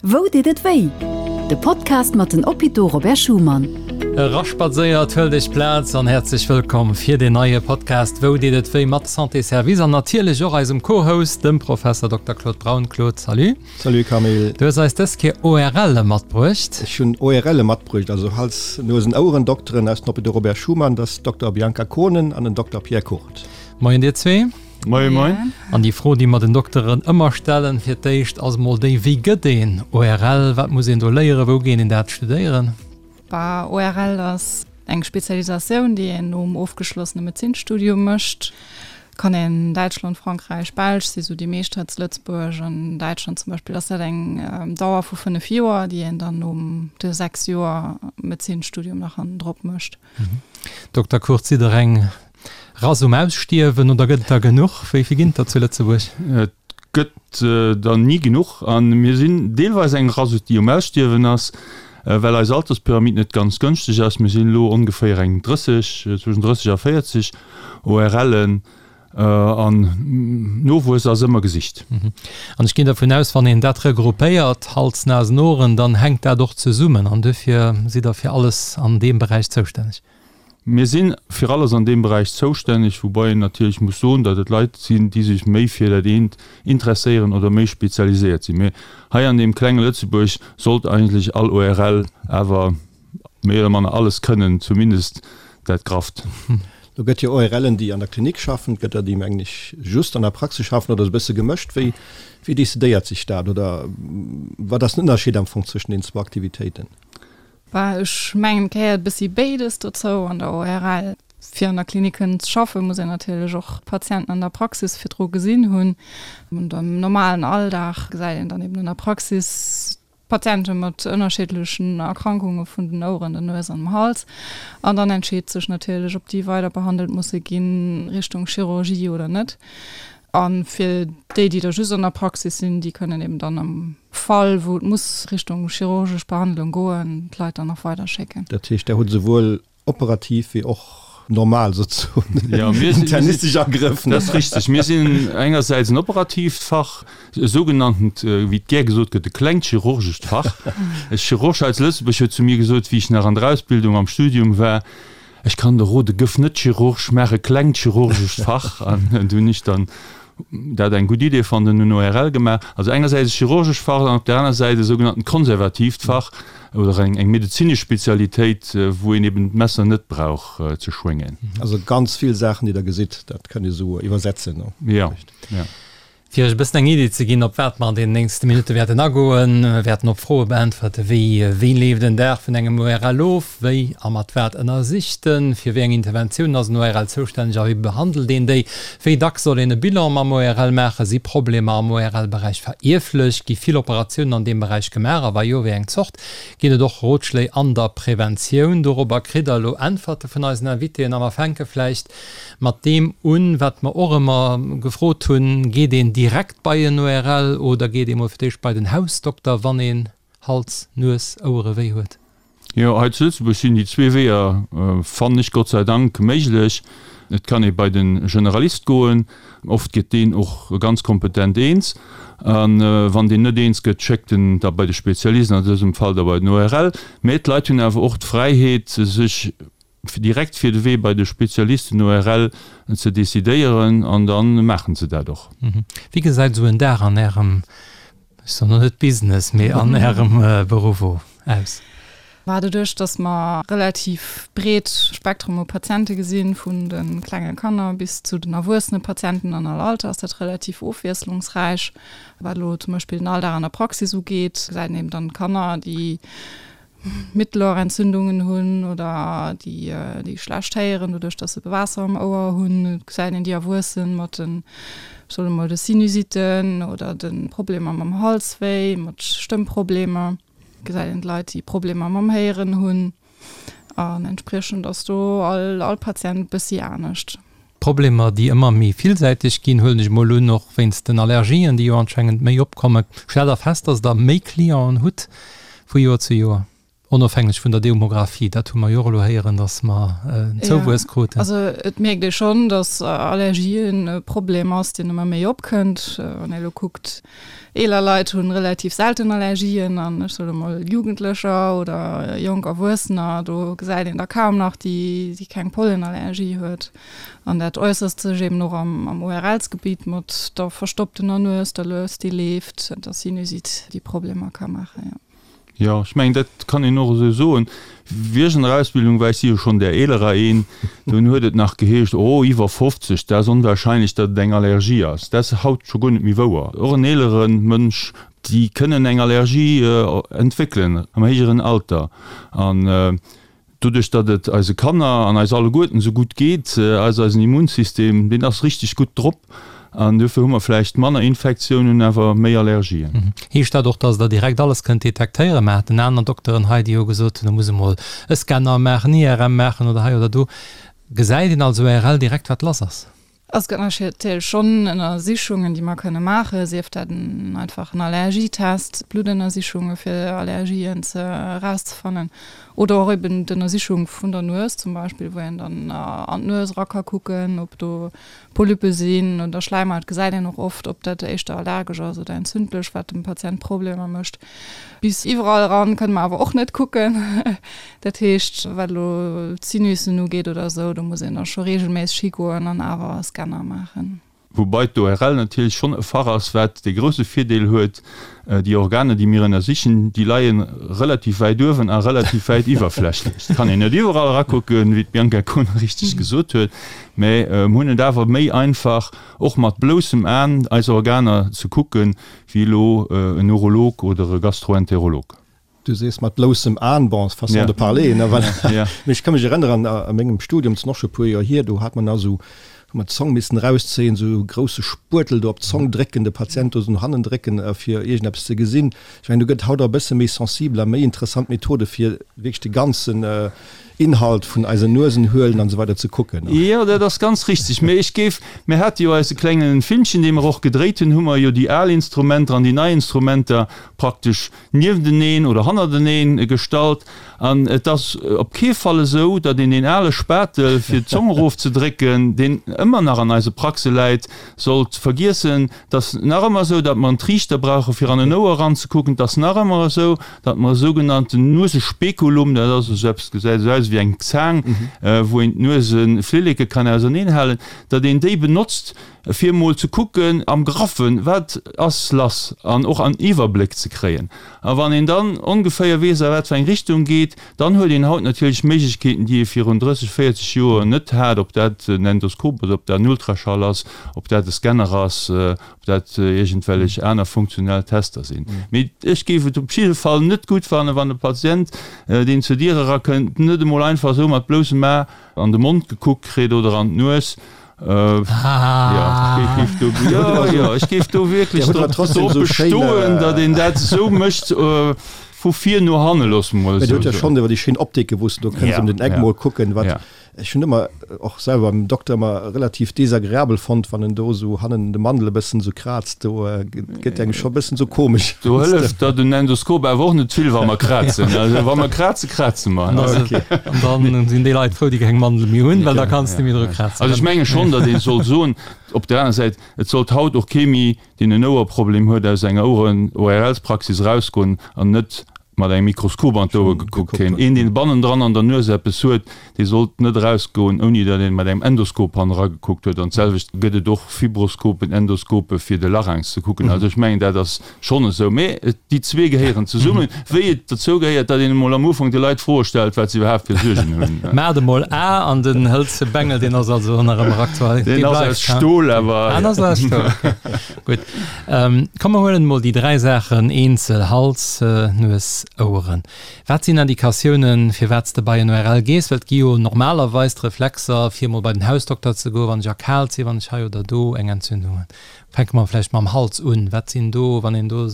Wou deet et wéi? De Podcast mat den Hôpitaux Robert Schuman. Eraspadséiert, huelt iech Plaz an häerzlech wëllkomm fir deen neie Podcast Wou deet et wéi mat Santé Service an natierlech och eisem Co-Host, dem Professor Dokter Claude Braun. Claude, salut. Salut Camille. Du hues eis dës Kéier ORLe matbruecht. Ech hunn ORLe matbruecht, also Hals-, Nuesen-, Ouerendokteren aus den Hôpitaux Robert Schuman, dat ass Dokter Bianca Kohnen an den Dokter Pierre Kurt. Moien dir zwee. Moien, moien. An déi Fro, déi mer den Dokteren ëmmer stellen, fir d'éischt ass emol déi, Wéi gëtt een ORL? Wat muss een do léieren? Wou geet een dat studéieren? Bah, ORL ass eng Spezialisatioun, déi een nom ofgeschlossene Medezinsstudium mécht. Kann een Däitschland, Frankräich, Belsch si sou déi meescht hei zu Lëtzebuerg. An Däitschland zum Beispill ass dat eng Dauer vu 5 Joer, déi een dann nom de 6 Joer Medezinsstudium nach hannendrop mécht. Dokter Kurth, sidd Der eng Rass um Ausstierwen oder gëtt et der genuch? Wéi vill ginn et der zu Lëtzebuerg? Et gëtt der ni genuch a mir sinn deelweis eng Rass, déi um Ausstierwen ass, well eis Alterspyramid net ganz gënschteg ass. Mir sinn elo ongeféier eng 30, zwëschen 30 a 40 ORLen. An Nowuess ass ëmmer gesicht. An ech ginn dervun aus, wann een dat regroupéiert, Hals, Nasen, Ohren, dann hänkt dat och zesummen an duerfir sidd Der fir alles an deem Beräich zoustänneg. Mir si fir alles an deem Beräich zoustänneg, woubai een natierlech muss soen, datt et Leit sinn, déi sech méi fir dat eent interesséieren oder méi spezialiséiert sinn. Mee hei an deem klenge Lëtzebuerg sollt eigentlech all ORL awer méi oder manner alles kënnen, zumindest dat Grafft. Do gëtt jo ORLen, déi an der Klinik schaffen, et gëtt der, déi, mengen ech, just an der Praxis schaffen oder esou e bësse gemëscht. Wéi, wéi decidéiert sech dat oder wat ass den Ënnerscheed am Fong zwëschen den zwou Aktivitéiten? Bah, ech mengen, et gehéiert e bëssi béides dozou an der ORL. Fir an der Klinik kënnen ze schaffen, muss een natierlech och d'Patienten an der Praxis virdru gesinn hunn. An am normalen Alldag gesäit een dann eben an der Praxis Patiente mat ënnerschiddlechen Erkrankunge vun den Oueren, der Nues an dem Hals. An dann entscheet sech natierlech, ob déi weider behandelt musse ginn, Richtung Chirurgie oder net. A fir déi, déi da just an der Praxis sinn, déi kënnen eben dann am Fall, wou et muss Richtung chirurgesch Behandlung goen, d'Leit dann nach weider schécken. Dat heescht, Der hutt esouwuel Operativ wéi och normal souzesoen internistesch Agrëff. Dat ass richteg. Mir sinn engersäits en operatiivt Fach, e sougenanntent, wéi et gär gesot gëtt, e klengt chirurgescht Fach. E Chirurg hei zu Lëtzebuerg huet zu mir gesot, wéi ech nach an der Ausbildung am Studium war, Ech kann der rode, gëff net Chirurg, maach e klengt chirurgescht Fach. An du hunn ech dann dat eng gutt Idee fonnt an hunn ORL gemaach. Also engersäits e chirurgescht Fach an op där aner Säit e sougenanntent konservatiivt Fach oder eng eng medezinesch Spezialitéit, wou een eben d'Messer net brauch ze schwéngen. Also ganz vill Saachen, déi Der gesitt, dat kënnt Dir esou iwwersetzen, ne? Jo, jo. Fir Iech e bëssen eng Idee ze ginn, op wat mer an deenen nächste Minutte wäerten agoen, wäerten op Froe beäntwerte wéi, Wéi leeft en Dag vun engem ORL of? Wéi a mat wat ënnersicht en? Fir wéi eng Interventiounen ass en ORL zoustänneg a wéi behandelt een déi? Wéi dacks soll een e Bilan mam ORL maachen? Si Problemer am ORL-Beräich verierflech? Gi vill Operatiounen an deem Beräich gemaach a wa jo, wéi eng Zort? Ginn et och Rotschléi an der Preventioun? Dorobber kritt der elo Äntwerte vun eisen Invitéen a mer fänke vläicht mat deem un, wat mer och ëmmer gefrot hunn, Geet een direkt bei en ORL oder geet ee mol fir d'éischt bei den Hausdokter, wann een Hals-, Nues-, Ouerewéi huet? Jo, hei zu Lëtzebuerg sinn déi zwee Weeër, fannen ech, Gott sei Dank méiglech. Et kann ee bei de Generalist goen, oft gëtt deen och ganz kompetent eens. A wann deen net eens gëtt, schéckt en da bei de Spezialist, an dësem Fall da bei den ORL. Mä d'Leit hunn awer och d'Fräiheet, sech direkt fir de Wee bei de Spezialist, den ORL, ze decidéieren an da maachen se dat och. Wéi gesäit esou en Dag an Ärem, ech soen elo net Business, mee an Ärem Beruff aus? Mä doduerch, datt mer relativ breet Spektrum u Patiente gesinn, vun de klenge Kanner bis zu den erwuessene Patienten an all Alter, ass dat relativ ofwiesslungsräich. Wat elo zum Beispill den Alldag an der Praxis ugeet, gesäit een eben dann Kanner, déi Mittelohrentzündungen hunn oder déi déi schlecht héieren, doduerch datt se Waasser am Ouer hunn. Et gesäit een déi Erwuessen mat den, ech soen emol, de Sinusitten oder de Problemer mam Halswéi, mat Stëmmproblemer. Et gesäit een d'Leit, déi Problemer mam Héieren hunn. An entspriechend ass do all all Patient e bëssi anescht. Problemer, déi ëmmer méi villsäiteg ginn, huelen ech emol un, och wéinst den Allergien, déi jo anscheinend méi opkommen. Stellt Der fest, dass Der méi Clienten hutt vu Joer zu Joer? Onofhängeg vun der Demographie, dat hu mer jo och elo héieren, datt mer en Zouwuess kruten. Also et mierkt ee schonn, datt Allergien e Problem ass, deen ëmmer méi opkënnt. Wann ee elo kuckt, eeler Leit hu relativ selten Allergien an ech soe mol Jugendlecher oder jonk Erwuessener, do gesäit een der kaum nach, déi déi keng Pollenallergie huet. An dat äusserst sech eben och am ORLs-Gebitt mat der verstopptener Nues, der Lues, déi leeft, der Sinusite, déi Problemer ka maachen, jo. Jo, ech mengen, dat kann een och esou soen. Wéi ech an der Ausbildung war, ech si jo schonn där eelerer een, dunn huet et nach geheescht, oh, iwwer 50, dat ass onwahrscheinlech, datt et eng Allergie ass. Dat ass haut scho guer net méi wouer. Och en eelere Mënsch, déi kënnen eng Allergie entwéckelen am héijeren Alter. An Doduerch datt et eise Kanner an eis alleguerten esou gutt geet, ass eisen Immunsystem, deen ass richteg gutt drop an dofir hu mer vläicht manner Infektiounen, awer méi Allergien. Heescht dat och, datt Der direkt alles kënnt detektéieren? Mer haten aner Dokteren hei, déi hu gesot hunn, da muss emol e Scanner maachen, IRM maachen oder hei oder do. Gesäit een als ORL direkt, wat lass ass? Es gëtt natierlech schonn Ënnersichungen, déi mer kënne maachen, sief dat en einfachen Allergietest, Bluttënnersichunge fir Allergien ze erauszefannen oder och eben d'Ënnersichung vun der Nues zum Beispill, wou een dann an d'Nues era ka kucken, ob do Polyppe sinn oder Schläimhaut gesäit een och oft, ob dat éischter allergesch ass oder entzündlech, wat dem Patient Problemer mécht. Bis iwwerall eran kënne mer awer och net kucken. Dat heescht, wat elo d'Sinussen ugeet oder esou, do muss een da scho reegelméisseg higoen an awer e Scanner maachen. Woubai d'ORL natierlech schonn e Fach ass, wat dee grousse Virdeel huet, déi Organer, déi mir ënnersichen, déi leie relativ wäit uewen a relativ wäit iwwerflächlech. Et kann een net iwwerall erakucken, wéi d'Bianca Kohnen richteg gesot huet, mä mir hunn et awer méi einfach, och mat bloussem Aen eis Organer ze kucken, wéi elo en Urolog oder e Gastroenterolog. Du sees mat bloussem Aen, bon, façon de parler, ne, voilà. Mee ech ka mech erënneren, a mengem Studium, dat ass och scho e puer Joer hier, do hat mer nach esou, hu mer d'Zong missen erauszéien, esou e grousse Spuertel do op d'Zong drécken, de Patient do esou no hannen drécken, fir iergendeppes ze gesinn. Ech mengen, do gëtt haut och e bësse méi sensibel a méi interessant Methode fir wierklech de ganzen Inhalt vun eisen Nuesenhöhlen an esou weider ze kucken. Jo, dat ass ganz richtig. Mee ech géif, mir hate jo eise klengen Filmchen, dee mer och gedréit hunn, hu mer jo déi al Instrumenter an déi nei Instrumenter praktesch niefteneen oder hannerteneen gestallt. An et ass op kee Fall esou, datt een deen ale Spatel, fir d'Zong erofzedrécken, deen ëmmer nach an eise Praxe läit, sollt vergiessen. Et ass nach ëmmer esou, datt mer en Triichter brauche fir an en Ouer eranzekucken. Et ass nach ëmmer esou, datt mer e sougenannten Nuesespekulum, dat ass esou eppes, gesäit esou aus wéi eng Zaang, wou een d'Nueseflilleke kann auserneenhalen, datt een déi benotzt, fir emol ze kucken am Graffen, wat ass lass an och en Iwwerbléck ze kréien. A wann een dann ongeféier weess, a wat fir eng Richtung geet, dann huet een haut natierlech Méiglechkeeten, déi ee virun 30, 40 Joer net hat, ob dat en Endoskop ass, ob dat en Ultraschall ass, ob dat e Scanner ass, ob dat iergendwellech aner funktionell Tester sinn. Mee ech géif et op jidde Fall net gutt fannen, wann e Patient, deen zur Dier erakënnt, net emol einfach esou mat bloussem A an de Mond gekuckt kritt oder an d'Nues, Ech géif do wierklech drop bestoen, datt een dat esou mécht, vu vir no hanne, loosse mer emol esou soen. Mä dir hutt jo schonn iwwer déi schéin Optike wou s de do kënns ëm den Eck mol kucken, wat ech hunn ëmmer och selwer beim Dokter ëmmer relativ desagreabel fonnt, wann en do esou hannen de Mandel e bëssen esou kraazt, do gëtt engem scho e bëssen esou komesch. Do hëlleft der den Endoskop awer och net vill, wa mer krazen. Also wa mer krazen, kraze mer. An dann sinn déi Leit frou, déi keng Mandel méi hunn, well da kanns de méi dru krazen. Also ech menge schonn, datt ee sollt soen, op der aner Säit, et sollt haut och kee méi, deen en Ouerproblem huet, aus enger Oueren-ORLs-Praxis erausgoen an net mat engem Mikroskop an d'Ouer gekuckt kréien. Een, deen bannendran an der Nues eppes huet, dee sollt net erausgoen, ouni datt een mat engem Endoskop hannen eragekuckt huet. An d'selwecht gëtt et och Fibroskopen, Endoskope fir de Larynx ze kucken. Also ech mengen, dat ass schonn esou. Mee déi zwee gehéieren zesummen, wéi et dozou gehéiert, datt een emol am Ufank de Leit Froe stellt, wat se iwwerhaapt fir Suergen hunn. Maacht emol A an den hëlze Bengel, deen ass also nach ëmmer aktuell. Deen ass aus Stol, awer. Ah, deen ass aus Stol, okay. Gutt. Komm mer huelen emol déi 3 Saachen eenzel, Hals, Nues, Oueren. Wat sinn Indikatiounen, firwat s de bei en ORL gees? Well et gi jo normalerweis d'Reflexer, fir emol bei den Hausdokter ze goen, wann ech erkaalt sinn, wann ech hei oder do eng Entzündung hunn. Fänke mer vläicht mam Hals un. Wat sinn do, wann een do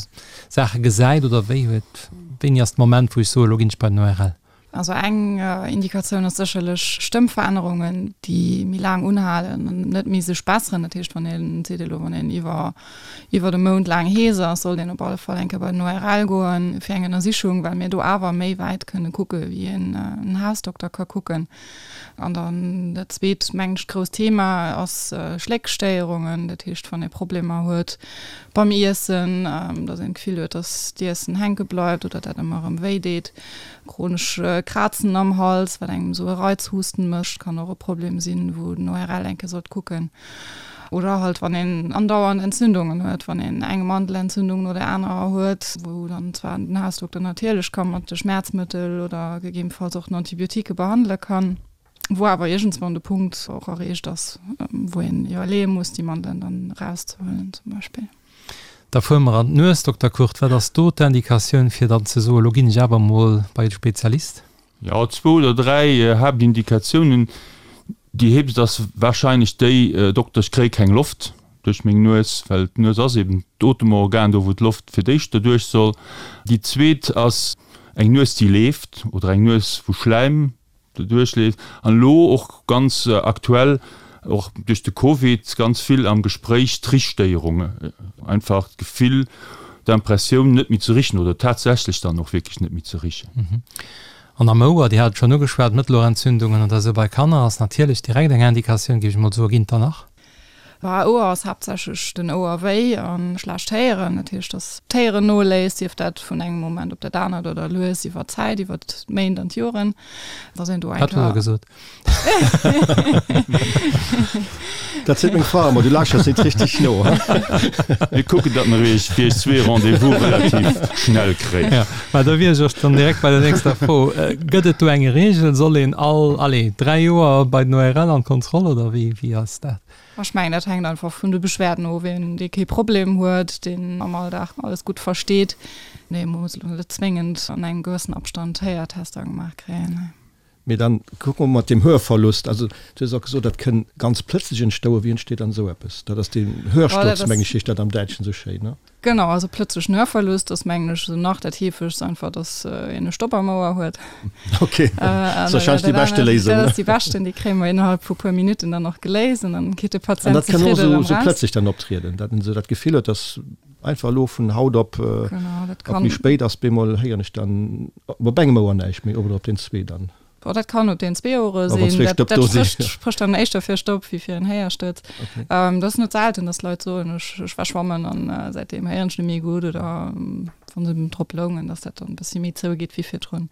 Saache gesäit oder wéi huet, wéini ass de Moment, wou ech soen, elo ginn ech bei den ORL? Also eng Indikatioun ass sécherlech Stëmmverännerungen, déi méi laang unhalen an net méi sech besseren. Dat heescht, wann een seet elo, wann een iwwer iwwer e Mount laang hees ass, sollt een op alle Fall eng Kéier bei den ORL goen fir eng Ënnersichung, well mir do awer méi wäit kënne kucke wéi een Hausdokter ka kucken. An dann dat zweet, mengen ech, grousst Thema ass Schléckstéierungen. Dat heescht, wann ee Problemer huet beim Iessen, datt een d'Gefill huet, datt d'Iessen hänke bleift oder dat ëmmer erëm wéi deet. Chronesch Krazen am Hals, wat engem esou e Reizhusten mécht, kann och e Problem sinn, wou den ORL eng Kéier sollt kucken. Oder halt wann een andauernd Entzündungen huet, wann een eng Mandelentzündung no der anerer huet, wou dann zwar den Hausdokter natierlech ka mat de Schmäerzmëttel oder gegebenfalls och den Antibiotiquë behandele kann, wou awer iergendswann de Punkt och erreecht ass, wou een iwwerleeë muss, déi Mandelen dann erauszehuelen zum Beispill. Da fuere mer an d'Nues, Dokter Kurt. Wat ass do d'Indikatioun, fir dann ze soen, elo ginn ech awer emol bei de Spezialist? Jo, zwou oder dräi Haaptindikatiounen. Déi heefegst ass warscheinlech déi, Dokter, ech kréie keng Loft duerch meng Nues, well d'Nues ass eben d'Otemorgan, do wou d'Loft fir d'éischt derduerch soll. Déi zweet ass eng Nues, déi leeft oder eng Nues, wou Schläim derduerch leeft. An elo och ganz aktuell, och duerch de Covid ganz vill am Gespréich, d'Richstéierung, einfach d'Gefill, d'Impressioun net méi ze richen oder tatsächlech dann och wierklech net méi ze richen. An am Ouer, Dir hat et schonn ugeschwat, Mëttelourentzündungen oder esou bei Kanner ass natierlech direkt eng Indikatioun, géif ech mol soen. Ginn et der nach? Bah, Ouer ass haaptsächlech den Ouerwéi a schlecht Héieren. Dat heescht, dass d'Héieren noléisst, sief dat vun engem Moment op dat anert oder lues iwwer d'Zäit, iwwer d'Méint an d'Joren, dass een do eng Wat huet Der gesot? Dat seet meng Fra ëmmer, du lauschters net richteg no. Mir kucken, datt mer iech fir iech zwee Rendez-vous relativ schnell kréien. Ja, mä da wier ech och dann direkt bei der nächster Fro. Gëtt et do eng Reegel? Soll een all, allez, 3 Joer bei den ORL an d'Kontroll oder wéi, wéi ass dat? Ech mengen, dat hänkt einfach vun de Beschwerden of. Een, dee kee Problem huet, deen am Alldag alles gutt versteet, dee muss elo net zwéngend an engem gewëssen Abstand Héiertester gemaach kréien. Mee dann kucke mer mat deem Hörverlust. Also du hues och gesot, dat kënn ganz plëtzlech entstouen. Wéi entsteet dann esou eppes? Dat ass deen Hörsturz, meng ech, heescht dat am Däitschen esou schéin, ne? Genau, also plëtzlechen Hörverlust ass, mengen ech, esou nach dat heefegst, einfach dass een e Stopp am Ouer huet. Okay, dat ass warscheinlech déi beschte Léisung, ne? Dat ass déi beschten, déi kréie mer innerhalb vu puer Minutten dann och geléist an dann geet de Patient zefridden erëm raus. An dat kann och esou, esou plëtzlech dann optrieden, datt en esou dat Gefill huet, dass einfach elo vun haut op, op méi spéit ass, bemol héieren ech dann op engem Ouer näischt méi oder op den zwee dann. Bon, dat kann op den zwee Ouere sinn. Dat, dat sprécht, sprécht dann éischter fir Stopp wéi fir en Héierstuerz. Okay. Ähm, dat ass net selten, dass Leit soen, ech, ech war schwammen an äh, säitdeem héieren ech net méi gutt oder ähm, wann se drop loungen, dass dat dann e bëssi méi zougeet wéi virdrun.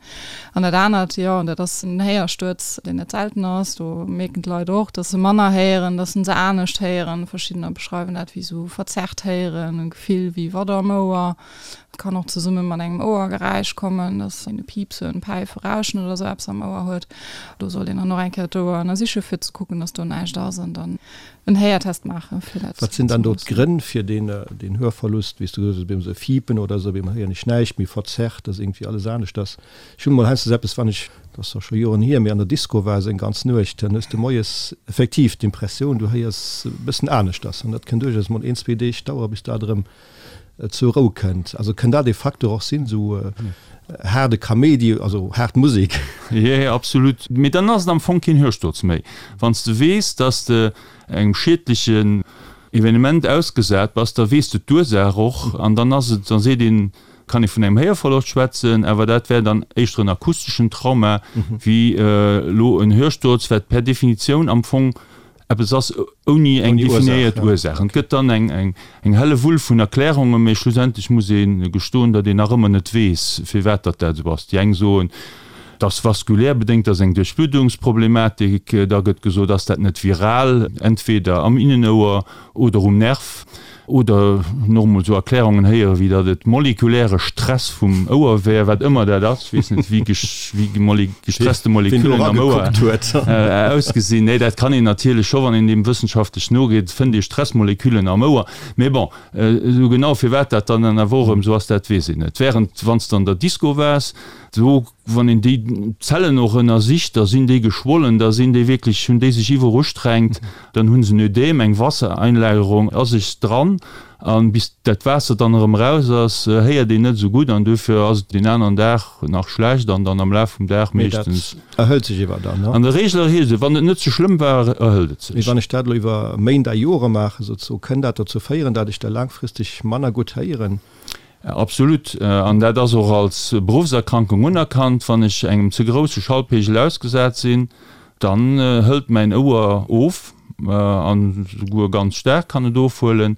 An dat anert, jo, an dat ass en Héierstuerz, deen net selten ass. Do mierken d'Leit och, dass se manner héieren, dass se se anescht héieren. Verschiddener beschreiwen dat wéi sou verzerrt héieren, e Gefill wéi Watt am Ouer. Et kann och zesumme mat engem Ouergeräisch kommen, dass een e Piipsen, Päifen, Rauschen oder sou eppes am Ouer huet. Do sollt een dann och eng Kéier d'Ouer ënnersiche fir ze kucken, dass do näischt ass an dann en Héiertest maachen, fir dat Wat sinn dann do d'Grënn fir deen, deen Hörverlust, wéi s du gesot hues, op eemol sou Fiepen oder sou, op eemol héieren ech näischt méi, verzerrt, dass iergendwéi alles anescht ass. Ech hunn emol heiansdo eppes, wann ech, dat ass zwar scho Joren hier, mee an der Disco war esou eng ganz Nuecht, dann hues de moies effektiv d'Impressioun, du héiers e bëssen aneschters an dat kënn duerchaus mol een, zwee Deeg dauere bis dat erëm zur Rou kënnt. Also kënn dat ee Facteur och sinn, esou haarde Kaméidi, also haart Musek? Jee, absolut. Mee dann ass et am Fong keen Hörsturz méi. Wann s de weess, dass de engem schiedlechen Evenement ausgesat bass, da weess de d'Ursaach och an dann ass et, da seet een, kann ee vun engem Héierverloscht schwätzen, awer dat wär dann éischter en akusteschen Trauma wéi elo en Hörsturz, wat per Definitioun am Fong eppes ass ouni eng definéiert Ursaach. Et gëtt dann eng helle Wull vun Erklärungen, mee schlussendlech muss ee gestoen, datt een nach ëmmer net weess, firwat datt dat esou ass. Déi eng soen, et ass vaskulär bedéngt, et ass eng Duerchbluddungsproblematik. Da gëtt gesot, ass dat net viral, entweder am Innenouer oder um Nerv. Oder nach emol esou Erklärungen héieren, wéi datt et molekuläre Stress vum Ouer wär, wat ëmmer dat ass. Ech weess net, wéi wéi gestresste Moleküllen am Ouer ausgesinn. Nee, dat kann een natierlech scho, wann een deem wëssenschaftlech nogeet, fënnt ee Stressmoleküllen am Ouer. Mee bon, esou genau firwat dat dann awer och erëm esou ass, dat weess een net. Während wann s de an der Disco waars, do Wann een déi Zellen och ënnersicht, da sinn déi geschwollen, da sinn déi wierklech, hunn déi sech iwwerustrengt, dann hu se en Ödem, eng Wassereinlagerung a sech dran. An bis dat Waasser dann erëm eraus ass, héiert een net esou gutt an duerfir ass et deen aneren Dag nach schlecht an dann am Laf vum Dag meeschtens. Mee dat erhëlt sech iwwer dann, ne? An der Reegel erhielt sech, wann et net ze schlëmm war, erhëlt et sech. Mee wann ech dat elo iwwer Méint a Jore maachen, souzesoen, kënn dat dozou féieren, dat ech da laangfristeg manner gutt héieren? Absolut. An dat ass och als Beruffserkrankung unerkannt. Wann ech engem ze grousse Schallpegel ausgesat sinn, Dann hëlt mäin Ouer of, an esouguer ganz staark kann et ofhuelen,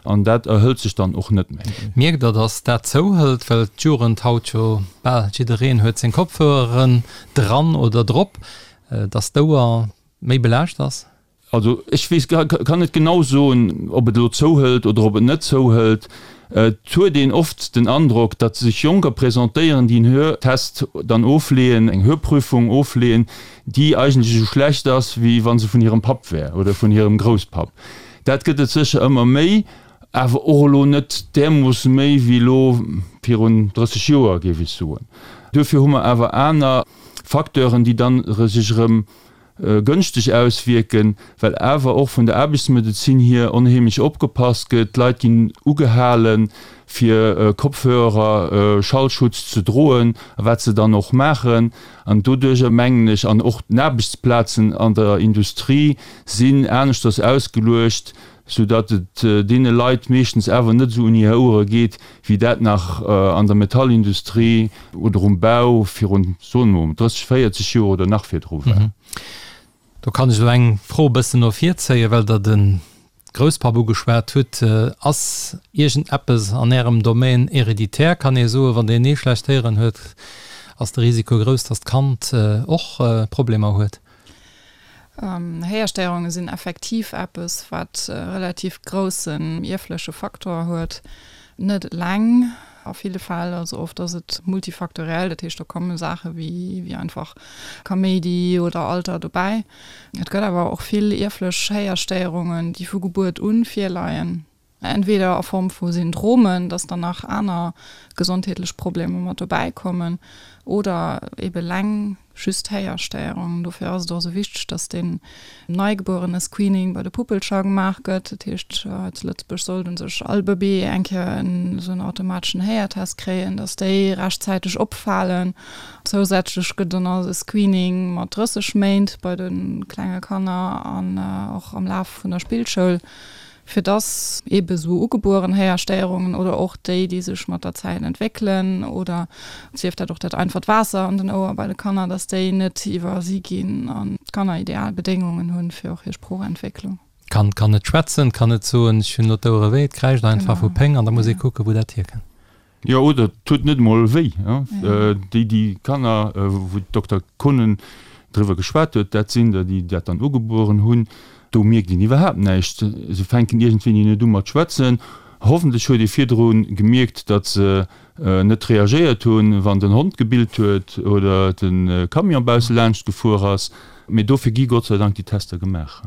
an dat erhëlt sech dann och net méi. Mierkt der, dass dat zouhëlt, well d'Jugend haut jo bal jiddereen huet seng Kopfhöreren dran oder drop, dass d'Ouer méi belaascht ass? Also ech weess, kann net genau soen, ob et elo zouhëlt oder ob et net zouhëlt. Et huet een oft den Androck, datt sech Jonker presentéieren, déi en Hörtest dann ofleeën, eng Hörprüfung ofleeën, déi eigentlech esou schlecht ass, wéi wa se vun hirem Papp wär oder vun hirem Grousspapp. Dat gëtt et sécher ëmmer méi, awer och elo net därmoosse méi wéi elo virun 30 Joer, géif ech soen. Duerfir hu mer awer aner Facteuren, déi dann sech erëm gënschteg auswierken, well awer och vun der Aarbechtsmedezin hier onheemlech opgepasst gëtt. D'Leit ginn ugehalen, fir Kopfhörer, Schallschutz ze droen, a wat se dann och maachen. An doduerjer mengen ech, an och d'Aarbechtsplazen an der Industrie sinn aneschters ausgeluecht, soudatt et deene Leit meeschtens awer net esou un hir Ouere geet, wéi dat nach an der Metallindustrie oder um Bau virun, soen mer mol, 30, 40 Joer oder nach virdru war. Do kann ech elo eng Fro e bëssen no vir zéien, well Der de Grousspapp ugeschwat hutt. Ass iergendeppes an Ärem Domaine héréditaire? Kann ee soen, wann deen ee schlecht Héieren huet, ass de Risiko grouss, datt d'Kand och Problemer huet? Héierstéierunge sinn effektiv eppes, wat e relativ groussen ierfleche Faktor huet. Net eleng a ville Fäll, also oft ass et multifaktoriell, dat heescht do komme Saache wéi einfach Kaméidi oder Alter dobäi. Et gëtt awer och vill ierflech Héierstéierungen, déi vu Gebuert un virleien. Entweder a Form vu Syndromen, dass dann nach aner gesondheetlech Problemer mat dobäi kommen, oder ebe leng just Héierstéierungen. Dofir ass et och esou wichteg, dass deen Neigebuerene-Screening bei de Puppelcher gemaach gëtt. Dat heescht, hei zu Lëtzebuerg sollt u sech all Bëbee eng Kéier esou en automateschen Héiertest kréien, dass déi rechtzäiteg opfalen. Zousätzlech gëtt dann nach e Screening mat 30 Méint bei de klenge Kanner an och am Laf vun der Spillschoul fir dass eebe sou ugebueren Héierstéierungen oder och déi, déi sech mat der Zäit entwéckelen oder sief dat och dat einfacht Waasser an den Ouer bei de Kanner, dass déi net iwwersi ginn an d'Kanner ideal Bedéngungen hunn fir och hir Sproochentwécklung. D'Kand kann net schwätzen, kann net soen, ech hunn elo d'Ouere wéi, et kräischt einfach vu Péng an da muss ee kucken, wou dat hierkënnt. Jo, oder et huet net emol wéi. Déi, déi Kanner, wou d'Dokter Konen driwwer geschwat huet, dat sinn der, déi dat dann ugebueren hunn. Do mierkt een iwwerhaapt näischt. Se fänken iergendwéini net u mat schwätzen. Hoffentlech huet ee virdru gemierkt, datt se net reagéiert hunn, wann den Hond gebillt huet oder de Camion bausse laanscht gefuer ass. Mee dofir gi Gott sei Dank déi Tester gemaach.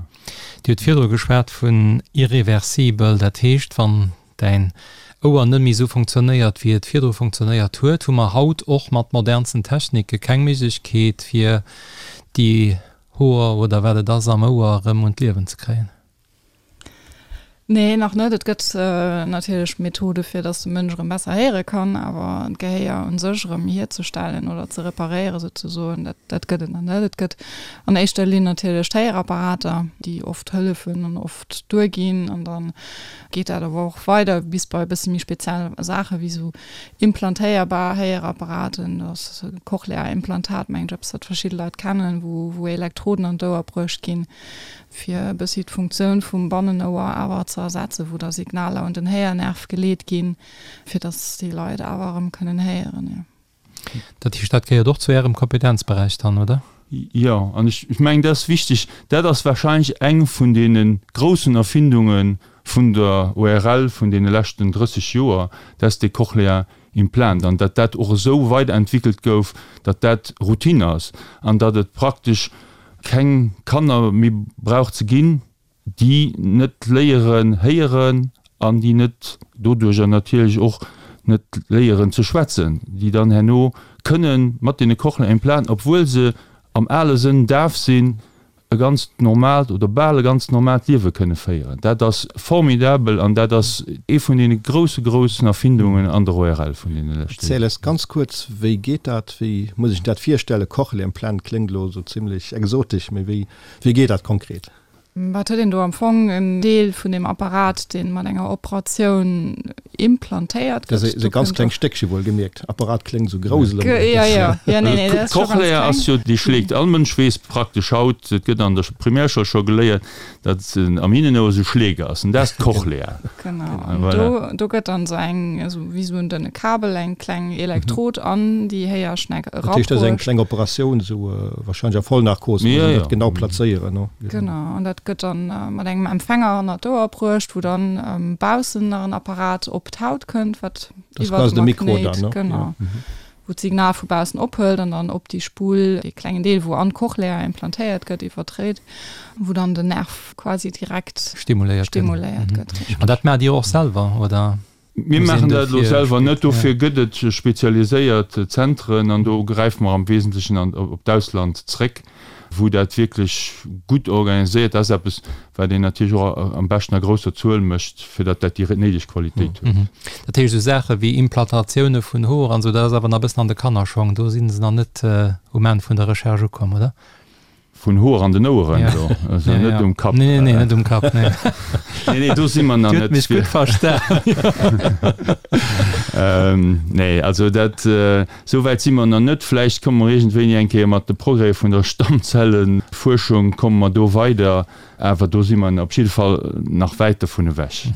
Dir hutt virdru geschwat vun irreversibel. Dat heescht, wann däin Ouer net méi esou funktionéiert wéi et virdru funktionéiert huet, hu mer haut och mat modernsten Technike keng Méiglechkeet fir déi Hoer oder wat et ass am Ouer erëm un d'Liewen ze kréien? Nee, nach net. Et gëtt natierlech Methode fir datt de Mënsch erëm besser héiere kann, awer d'Gehéier un sech erëm hierzestellen oder ze reparéiere souzesoen, dat dat gëtt et nach net. Et gëtt an éischter Linn natierlech d'Héierapparater, déi oft hëllefen an oft duerginn an dann Geet dat awer och weider bis bei e bësse méi speziell Saache wéi esou implantéierbar Héierapparaten, dat ass e Cochlea-Implantat, mengen ech, eppes wat verschidde Leit kennen, wou wou Elektroden an d'Ouer bruecht ginn, fir e bëssi d'Funktioun vum Bannenouer awer ze ersetzen, wou da Signaler un den Héiernerv geleet ginn, fir datt déi Leit awer erëm kënnen héieren, jo. Dat heescht, dat gehéiert och zu Ärem Kompetenzberäich dann, oder? Jo, an ech mengen, dat ass wichteg. Dat ass warscheinlech eng vun deene groussen Erfindunge vun der ORL vun deene leschten 30 Joer, dat dee Cochlear Implant, an datt dat och esou weiderentwickelt gouf, datt dat Routine ass an datt et praktesch keng Kanner méi brauch ze ginn, déi net léieren héieren an déi net doduerjer natierlech och net léieren ze schwätzen, déi dann herno kënnen mat deene Cochlear-Implanten, obwuel se am ale Sënn daf sinn, e ganzt normaalt oder bal e ganz normaalt Liewe kënne féieren. Dat ass formidabel an dat ass ee vun deene grousse, groussen Erfindungen an der ORL vun deene leschte Erziel eis ganz kuerz, wéi geet dat? Wéi muss ech dat virstellen? Cochlea-Implant kléngt elo esou zimlech exotesch, mee wéi, wéi geet dat konkret? Wat huet een do am Fong? En Deel vun deem Apparat, dee mat enger Operatioun implantéiert gëtt. Dat ass e ganz klengt Stéckche, wuel gemierkt. Apparat kléngt esou grouss elo. Jo, jo, jo, nee, nee, dat ass scho ganz kleng. D'Cochlea ass jo, déi schléit. All Mënsch weess praktesch haut, et gëtt an der Primärschoul scho geléiert, datt am Hinnenouer esou Schleek ass. An dat ass d'Cochlea. Genau. An do, do gëtt dann esou eng, esou wéi esou en dënne Kabel, eng kleng Elektrod an déi Héierschneck erabruecht. Dat heescht, dat ass eng kleng Operatioun, esou Wahrscheinlech a Vollnarkos, muss een dat genau plazéieren, no? Genau, an dat gëtt dann mat engem Empfänger hannert d'Ouer bruecht, wou dann baussen nach en Apparat op d'Haut kënnt, wat iwwer de Magnéit, genau, wou d'Signal vu baussen ophëlt an dann op déi Spull, dee klengen Deel, wou an d'Cochlea implantéiert gëtt, iwwerdréit, wou dann den Nerv quasi direkt stimuléiert gëtt. An dat maacht Dir och selwer, oder? Mir maachen dat elo selwer net. Dofir gëtt et spezialiséiert Zentren an do gräife mer am Wesentlechen op d'Ausland zréck, wou dat wierklech gutt organiséiert ass. Eppes, wat een natierlech och am beschten a grousser Zuel mécht, fir datt dat déi néideg Qualitéit huet. Dat heescht, esou Saache wéi Implantatioune vun Hoer an esou, dat ass awer nach e bëssen an de Kannerschong. Do si se nach net um Enn vun der Recherche ukomm, oder? Vun Hoer an den Oueren elo, also net um Kapp. Nee, nee, net um Kapp, nee. Nee, nee, do si mer nach net. Dir hutt mech gutt verstan. Nee, also dat, esou wäit si mer nach net. Vläicht komme mer iergendwéini eng Kéier mat de Progrèse vun der Stammzellenfuerschung, komme mer do weider, awer do si mer op jidde Fall nach wäit dovun ewech.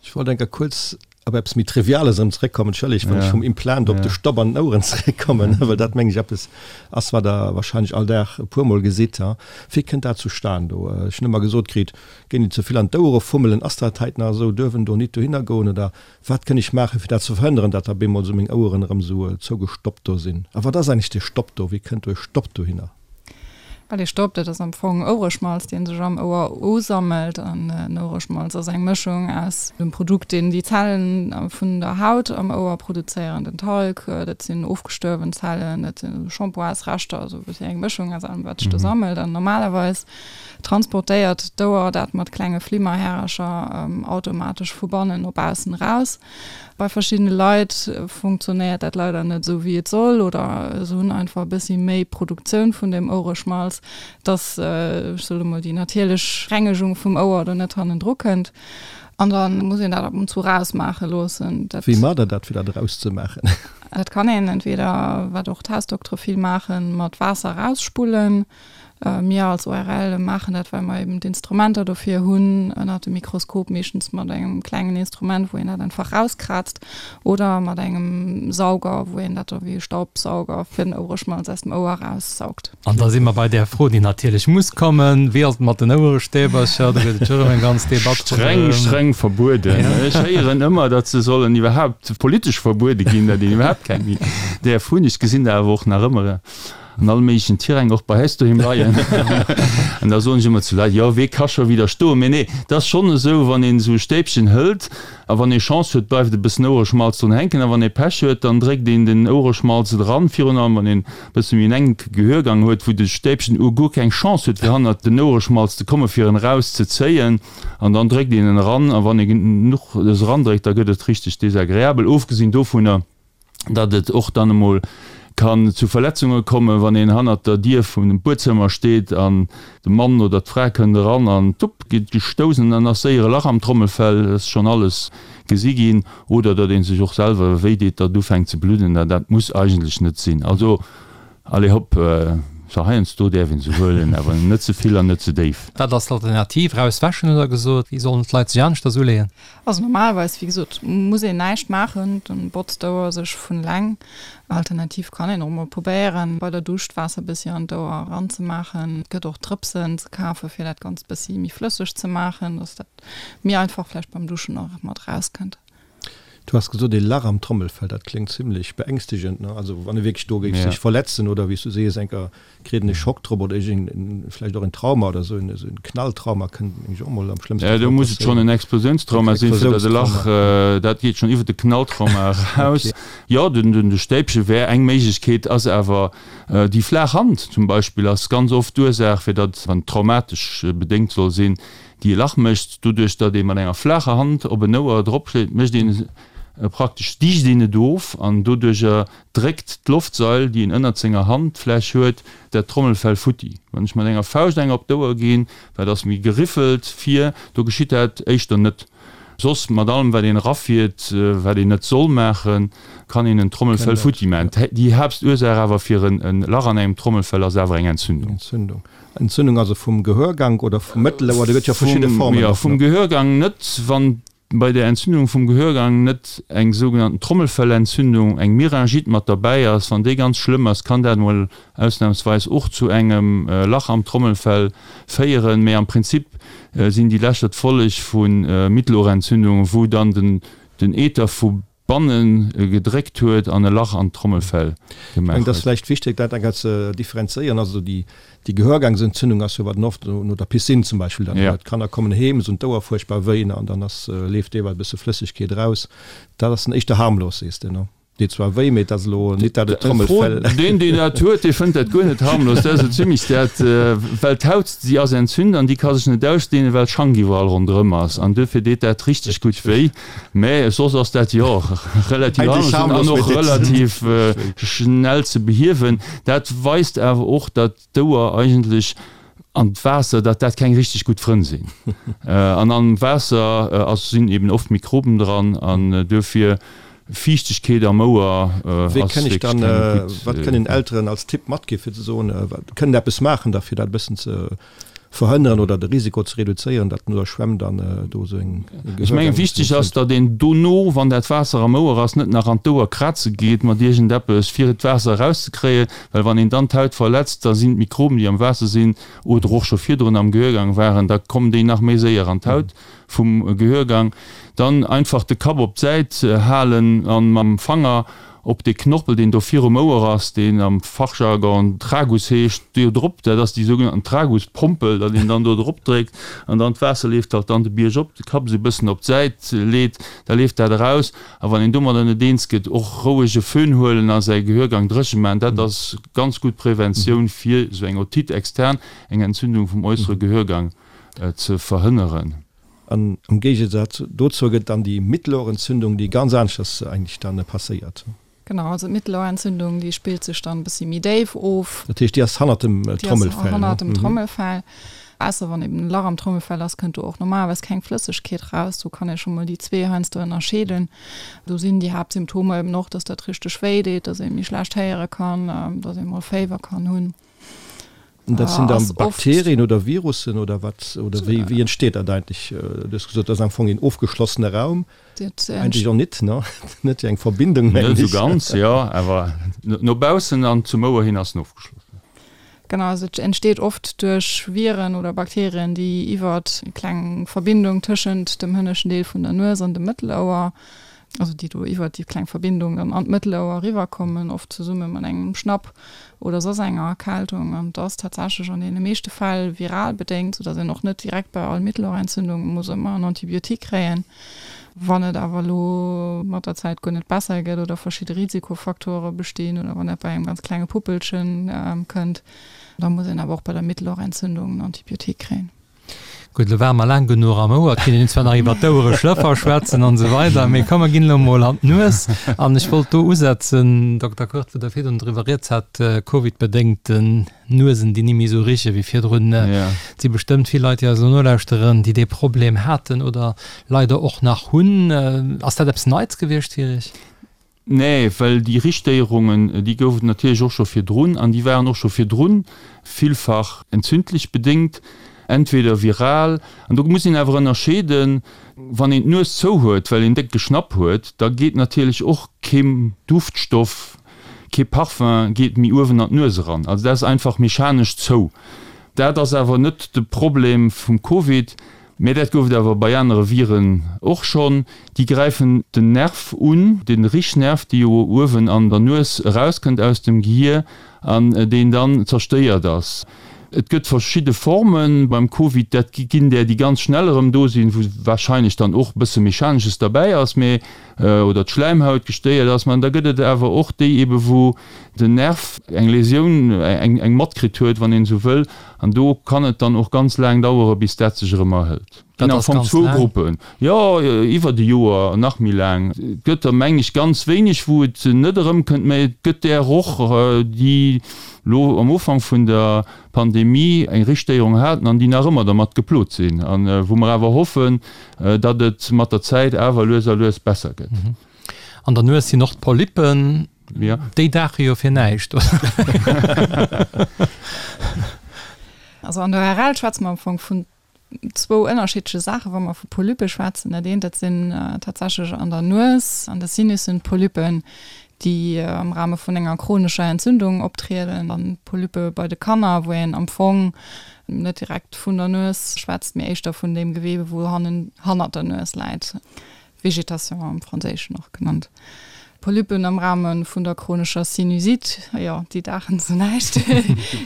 Ech wollt eng Kéier kuerz op eppes méi Triviales erëm zeréckkommen, entschëllegt, wann ech vum Implant op de Stopp an den Oueren zeréckkommen, well dat, meng ech, eppes ass, wat Der wahrscheinlech all Dag e puermol gesitt. Wéi kënnt dat zustan do? Ech hunn ëmmer gesot kritt, géint een ze vill an d'Ouere fummelen. Ass dat heit nach esou? Duerf en do nit dohinner goen? Oder wat kënn ech maachen, fir dat ze verhënneren, datt da bemol esou meng Oueren erëm esou zougestoppt do sinn? A wat ass eigentlech dee Stopp do? Wéi kënnt do e Stopp dohinner? Well ee Stopp, dat ass am Fong Ouereschmalz, dee sech am Ouer usammelt. An en Ouereschmalz ass eng Mëschung aus dem Produkt, deen déi Zellen vun der Haut am Ouer produzéieren, den Talg, dat sinn ofgestuerwen Zellen, dat si Shampoinsreschter, also e bëssi eng Mëschung aus allem, wat sech do sammelt. An normalerweis transportéiert d'Ouer dat mat klenge Flimmerhärercher automatesch vu bannen no baussen eraus. Bei verschiddene Leit funktionéiert dat leider net esou wéi et soll oder se hunn einfach e bëssi méi Produktioun vun deem Ouereschmalz, dass, ech soe mol, déi natierlech Rengegung vum Ouer do net hannendru kënnt. An da muss een dat ab und zu rausmaache loossen. Dat. Wéi maacht der dat, fir dat erauszemaachen? Dat kann een entweder, wat och d'Hausdoktere vill maachen, mat Waasser erausspullen. Mir als ORL maachen dat, well mer eben d'Instrumenter dofir hunn, ënnert dem Mikroskop, meeschtens mat engem klengen Instrument, wou een dat einfach rauskraazt, oder mat engem Sauger, wou een dat da wéi e Staubsauger fir den Ouereschmalz aus dem Ouer eraussaugt. An da si mer bei där Fro, déi natierlech muss kommen, Wéi ass et mat den Ouerestäbercher? Do gëtt et jo erëm eng ganz Debatt ronderëm. Streng, streng verbueden. Ech héieren ëmmer, datt se sollen iwwerhaupt politesch verbuede ginn, datt een iwwerhaupt keng méi däerf hunn. Ech gesinn der awer och nach ëmmer. an all méiglechen Tiräng och bei äis doheem leien. An da soen ech ëmmer zu Leit, jo, wee ka scho widderstoen? Mee nee, et ass schonn esou, wann een esou e Stäbchen hëlt a wann ee Chance huet, bleift e bëssen Ouereschmalz drun hänken a wann ee Pech huet, dann dréckt een den Ouereschmalz eran, virun allem wann een e bësse méi en enke Gehörgang huet, wou de Stäbchen u guer keng Chance huet, fir hannert den Ouereschmalz ze kommen, fir en erauszezéien. An dann dréckt een en eran a wann ee genuch erandréckt, da gëtt et richteg desagreabel. Ofgesinn dovunner, datt et och dann emol kann zu Verletzunge kommen, wann een hannert der Dier vum Buedzëmmer steet an de Mann oder d'Fra kënnt eran an tupp geet gestouss an dann ass séier e Lach am Trommelfell, dat ass schonn alles gesi ginn, oder datt ee sech och selwer wéi deet, datt et ufänkt ze bludden, an dat muss eigentlech net sinn. Also allez hopp, se heiansdo däerf een se huelen, awer net ze vill an net ze déif. Wat ass d'Alternativ? Raus wäschen hutt Der gesot. Wéi sollen d'Leit sech aneschters uleeën? Also normalerweis, wéi gesot, muss een näischt maachen, dann botzt d'Ouer sech vun eleng. Alternativ kann een och mol probéieren, bei der Dusch d'Waasser bëssi an d'Ouer eranzemaachen. Et gëtt och Drëpsen ze kafen, fir dat Ganzt bëssi méi flësseg ze maachen, dass dat méi einfach vläicht beim Duschen och mat erauskënnt. Du has gesot, ee Lach am Trommelfell, dat kléngt zimlech beängstegend, ne? Also wann e wierklech do géif sech verletzen oder wéi s du sees, enker kritt en e Schock drop oder iergend vläicht och en Trauma oder esou, esou en Knalltrauma kënnt mengen ech och mol am schlëmmste Fall passéieren. Jo, do muss et schonn en Explosiounstrauma sinn, fir datt e Lach, dat geet schonn iwwer de Knalltrauma eraus. Jo, den de Stäibche wär eng Méiglechkeet, ass awer déi flaach Hand zum Beispill ass ganz oft d'Ursaach, fir datt, wann et traumatesch bedéngt soll sinn, déi e Lach mécht. Doduerch, datt ee mat enger flaacher Hand op en Ouer dropschléit, mécht een praktesch, dicht een et of an doduercher dréckt d'Loftsail, déi een ënnert senger Handfläch huet, dat Trommelfell futti. Wann ech mat enger Fauscht enger op d'Ouer ginn, wat ass méi geriffelt vir, do geschitt dat éischter net. Soss mat allem wat een erafiert, wat een net soll maachen, kann een en Trommelfell futti maachen. Déi Haaptursaach awer fir en Lach an engem Trommelfell ass awer eng Entzündung. Entzündung also vum Gehörgank oder vum Mëttelouer, do gëtt jo verschidde Formen. Jo, vum Gehörgang net. Wann bei der Entzündung vum Gehörgang net eng sougenannten Trommelfellentzündung, eng Myringite mat derbäi ass, wann déi ganz schlëmm ass, kann dat mol ausnahmsweis och zu engem Lach am Trommelfell féieren. Mee am Prinzip sinn déi Lächer d'Folleg vu Mittelohrentzündungen, wou dann den Ether vu banne gedréckt huet an e Lach an d'Trommelfell gemaach huet. Ech mengen, et ass vläicht wichteg, dat eng Kéier ze differenzéieren. Also déi Gehörgangsentzündung ass jo, wat een oft no der Piscine zum Beispill dann huet. D'Kanner kommen heem, se hunn d'Ouer fuerchtbar wéi an dann ass, leeft deelweis e bësse Flëssegkeet eraus. Dat ass dann éischter harmlos, sees de, ne? Deet zwar wéi, mee et ass elo nit dat et Trommelfell. Deen, deen dat huet, dee fënnt dat guer net harmlos. Dat ass esou zimlech dat, well d'Haut, déi ass entzünt an déi ka sech net ausdeenen, well d'Schank iwwerall ronderëm ass. An duerfir deet dat richteg gutt wéi. Mä soss ass dat, jo, relativ harmlos an och relativ schnell ze behiewen. Dat weist awer och, datt d'Ouer eigentlech an d'Waasser, datt dat keng richteg gutt Frënn sinn. An am Waasser ass, sinn eben oft Mikroben dran an duerfir Fiichtegkeet am Ouer ass wierklech keng gutt. Wat kënnen Elteren als Tipp matgi fir ze soen, kënnen eppes maachen da fir dat e bëssen ze verhënneren oder de Risiko ze reduzéieren, datt no der Schwämm dann do esou eng Ech mengen, wichteg ass, datt een dono, wann dat Waasser am Ouer ass, net nach an d'Ouer kraze geet mat iergendeppes, fir d'Waasser erauszekréien, well wann een dann d'Haut verletzt, da sinn d'Mikroben, déi am Waasser sinn oder och scho virdrun am Gehörgang waren, da kommen déi nach méi séier an d'Haut vum Gehörgang. Dann einfach de Kapp op d'Säit halen an mam Fanger op dee Knorpel, deen do virum Ouer ass, deen am Fachjargon Tragus heescht, do drop, dat ass déi sougenannten Traguspompel, datt een dann do drop dréckt an dann d'Waasser leeft halt dann de Bierg op, de Kapp esou e bëssen op d'Säit leet, da leeft dat eraus. A wann een domadder net eens gëtt, och roueg e Föhn huelen a säi Gehörgang dréche maachen, dat ass ganz gutt Preventioun fir esou eng Otite externe, eng Entzündung vum äussere Gehörgang ze verhënneren. An am Géigesaz dozou gëtt dann déi Mittelohrentzündung, déi ganz aneschters eigentlech dann passéiert. Genau, also d'Mittelohrentzündung, déi spillt sech dann e bëssi méi déif of. Dat heescht, déi ass hannert dem Trommelfell? Déi ass hannert dem Trommelfell. Ausser wann eben e Lach am Trommelfell ass, kënnt do och normalerweis keng Flëssegkeet raus. Do kann ee scho mol déi zwee heiansdo ënnerscheeden. Do sinn déi Haaptsymptomer eben och, dass dat richteg wéi deet, dass ee méi schlecht héiere kann, dass ee mol Féiwer kann hunn. Dat sinn dann Bakterien oder Virussen oder wat? Oder wéi, wéi entsteet dat eigentlech? Du hues gesot, dat ass am Fong een ofgeschlossene Raum. Eigentlech och nit, ne? Net wéi eng Verbindung, mengen ech. Net esou ganz, jo, awer no baussen an zum Ouer hin ass en ofgeschlossen. Genau, also et entsteet oft duerch Viren oder Bakterien, déi iwwert eng kleng Verbindung tëschent dem hënneschten Deel vun der Nues an dem Mëttelouer also déi do iwwert déi kleng Verbindung dann an d'Mëttelouer eriwwerkommen, oft zesumme mat engem Schnapp oder soss enger Erkältung. An et ass tatsächlech an deene meeschte Fäll viral bedéngt, soudass een och net direkt bei all Mittelohrentzündung muss ëmmer en Antibiotique kréien. Wann et awer elo mat der Zäit guer net besser gëtt oder verschidde Risikofaktore bestinn oder wann dat bei engem ganz klenge Puppelchen kënnt, da muss een awer och bei der Mittelohrentzündung en Antibiotique kréien. Gutt, elo ware mer laang genuch am Ouer. Et kéint een zwar nach iwwer d'Ouere Schlëffer schwätzen an esou weider, mee komm, mer ginn elo emol an d'Nues. An ech wollt do usetzen, Dokter Kurt, wou Der virdrun driwwer rieds hat, Covid-bedéngten Nuesen, déi ni méi esou riche wéi virdrun. Et si bestëmmt vill Leit, déi eis elo nolauschteren, déi dee Problem haten oder leider och nach hunn. Ass dat eppes Neits gewiescht fir Iech? Nee, well déi Richtstéierungen, déi gouf et natierlech och scho virdrun an déi waren och scho virdrun villfach entzündlech bedéngt, entweder viral, an do muss een awer ënnerscheeden, wann een d'Nues zou huet, well een déck Geschnapp huet, da geet natierlech och kee Duftstoff, kee Parfum geet méi uewen an d'Nues eran. Also dat ass einfach mechanesch zou. Dat ass awer net de Problem vum Covid. Mä dat gouf et awer bei anere Viren och schonn. Déi gräifen den Nerv un, de Richnerv, dee jo uewen an der Nues erauskënnt aus dem Gehier an deen dann zerstéiert ass. Et gëtt verschidde Forme beim Covid, dat ginn där, déi ganz schnell erëm do sinn, wou warscheinlech dann och e bësse Mechanesches derbäi ass, mä oder d'Schläimhaut gestéiert ass. Mä da gëtt et awer och déi ebe wou den Nerv eng Läsioun, eng matkritt huet, wann een esou wëll, an do kann et dann och ganz laang dauere bis dat sech erëm erhëlt. Ginn am Fong zwou Gruppen, jo iwwert e Joer, nach méi laang. Et gëtt der meng ech ganz wéineg wou et net erëmkënnt, mä et gëtt där och déi lo am Ufank vun der Pandemie eng Ristéierung haten an déi nach ëmmer dermat geplot sinn a wou mer awer hoffen, datt et mat der Zäit awer lues a lues besser gëtt. An der Nues sinn och d'Polyppen, déi daache jo fir näischt, oder? Also an der ORL schwätze mer am Fong vun zwou ënnerschiddleche Saachen, wa mer vu Polyppe schwätzen. Dat eent, dat sinn tatsächlech an der Nues, an de Sinussen Polyppen, déi am Rahme vun enger chronescher Entzündung optrieden, an Polyppe bei de Kanner, wou een am Fong net direkt vun der Nues schwätzt, mee éischter vun deem Gewebe, wou hannen hannert der Nues läit. Végétation am Franséischen och genannt. Polypen am Rahme vun der chronescher Sinusite, jo, déi daachen zu näischt.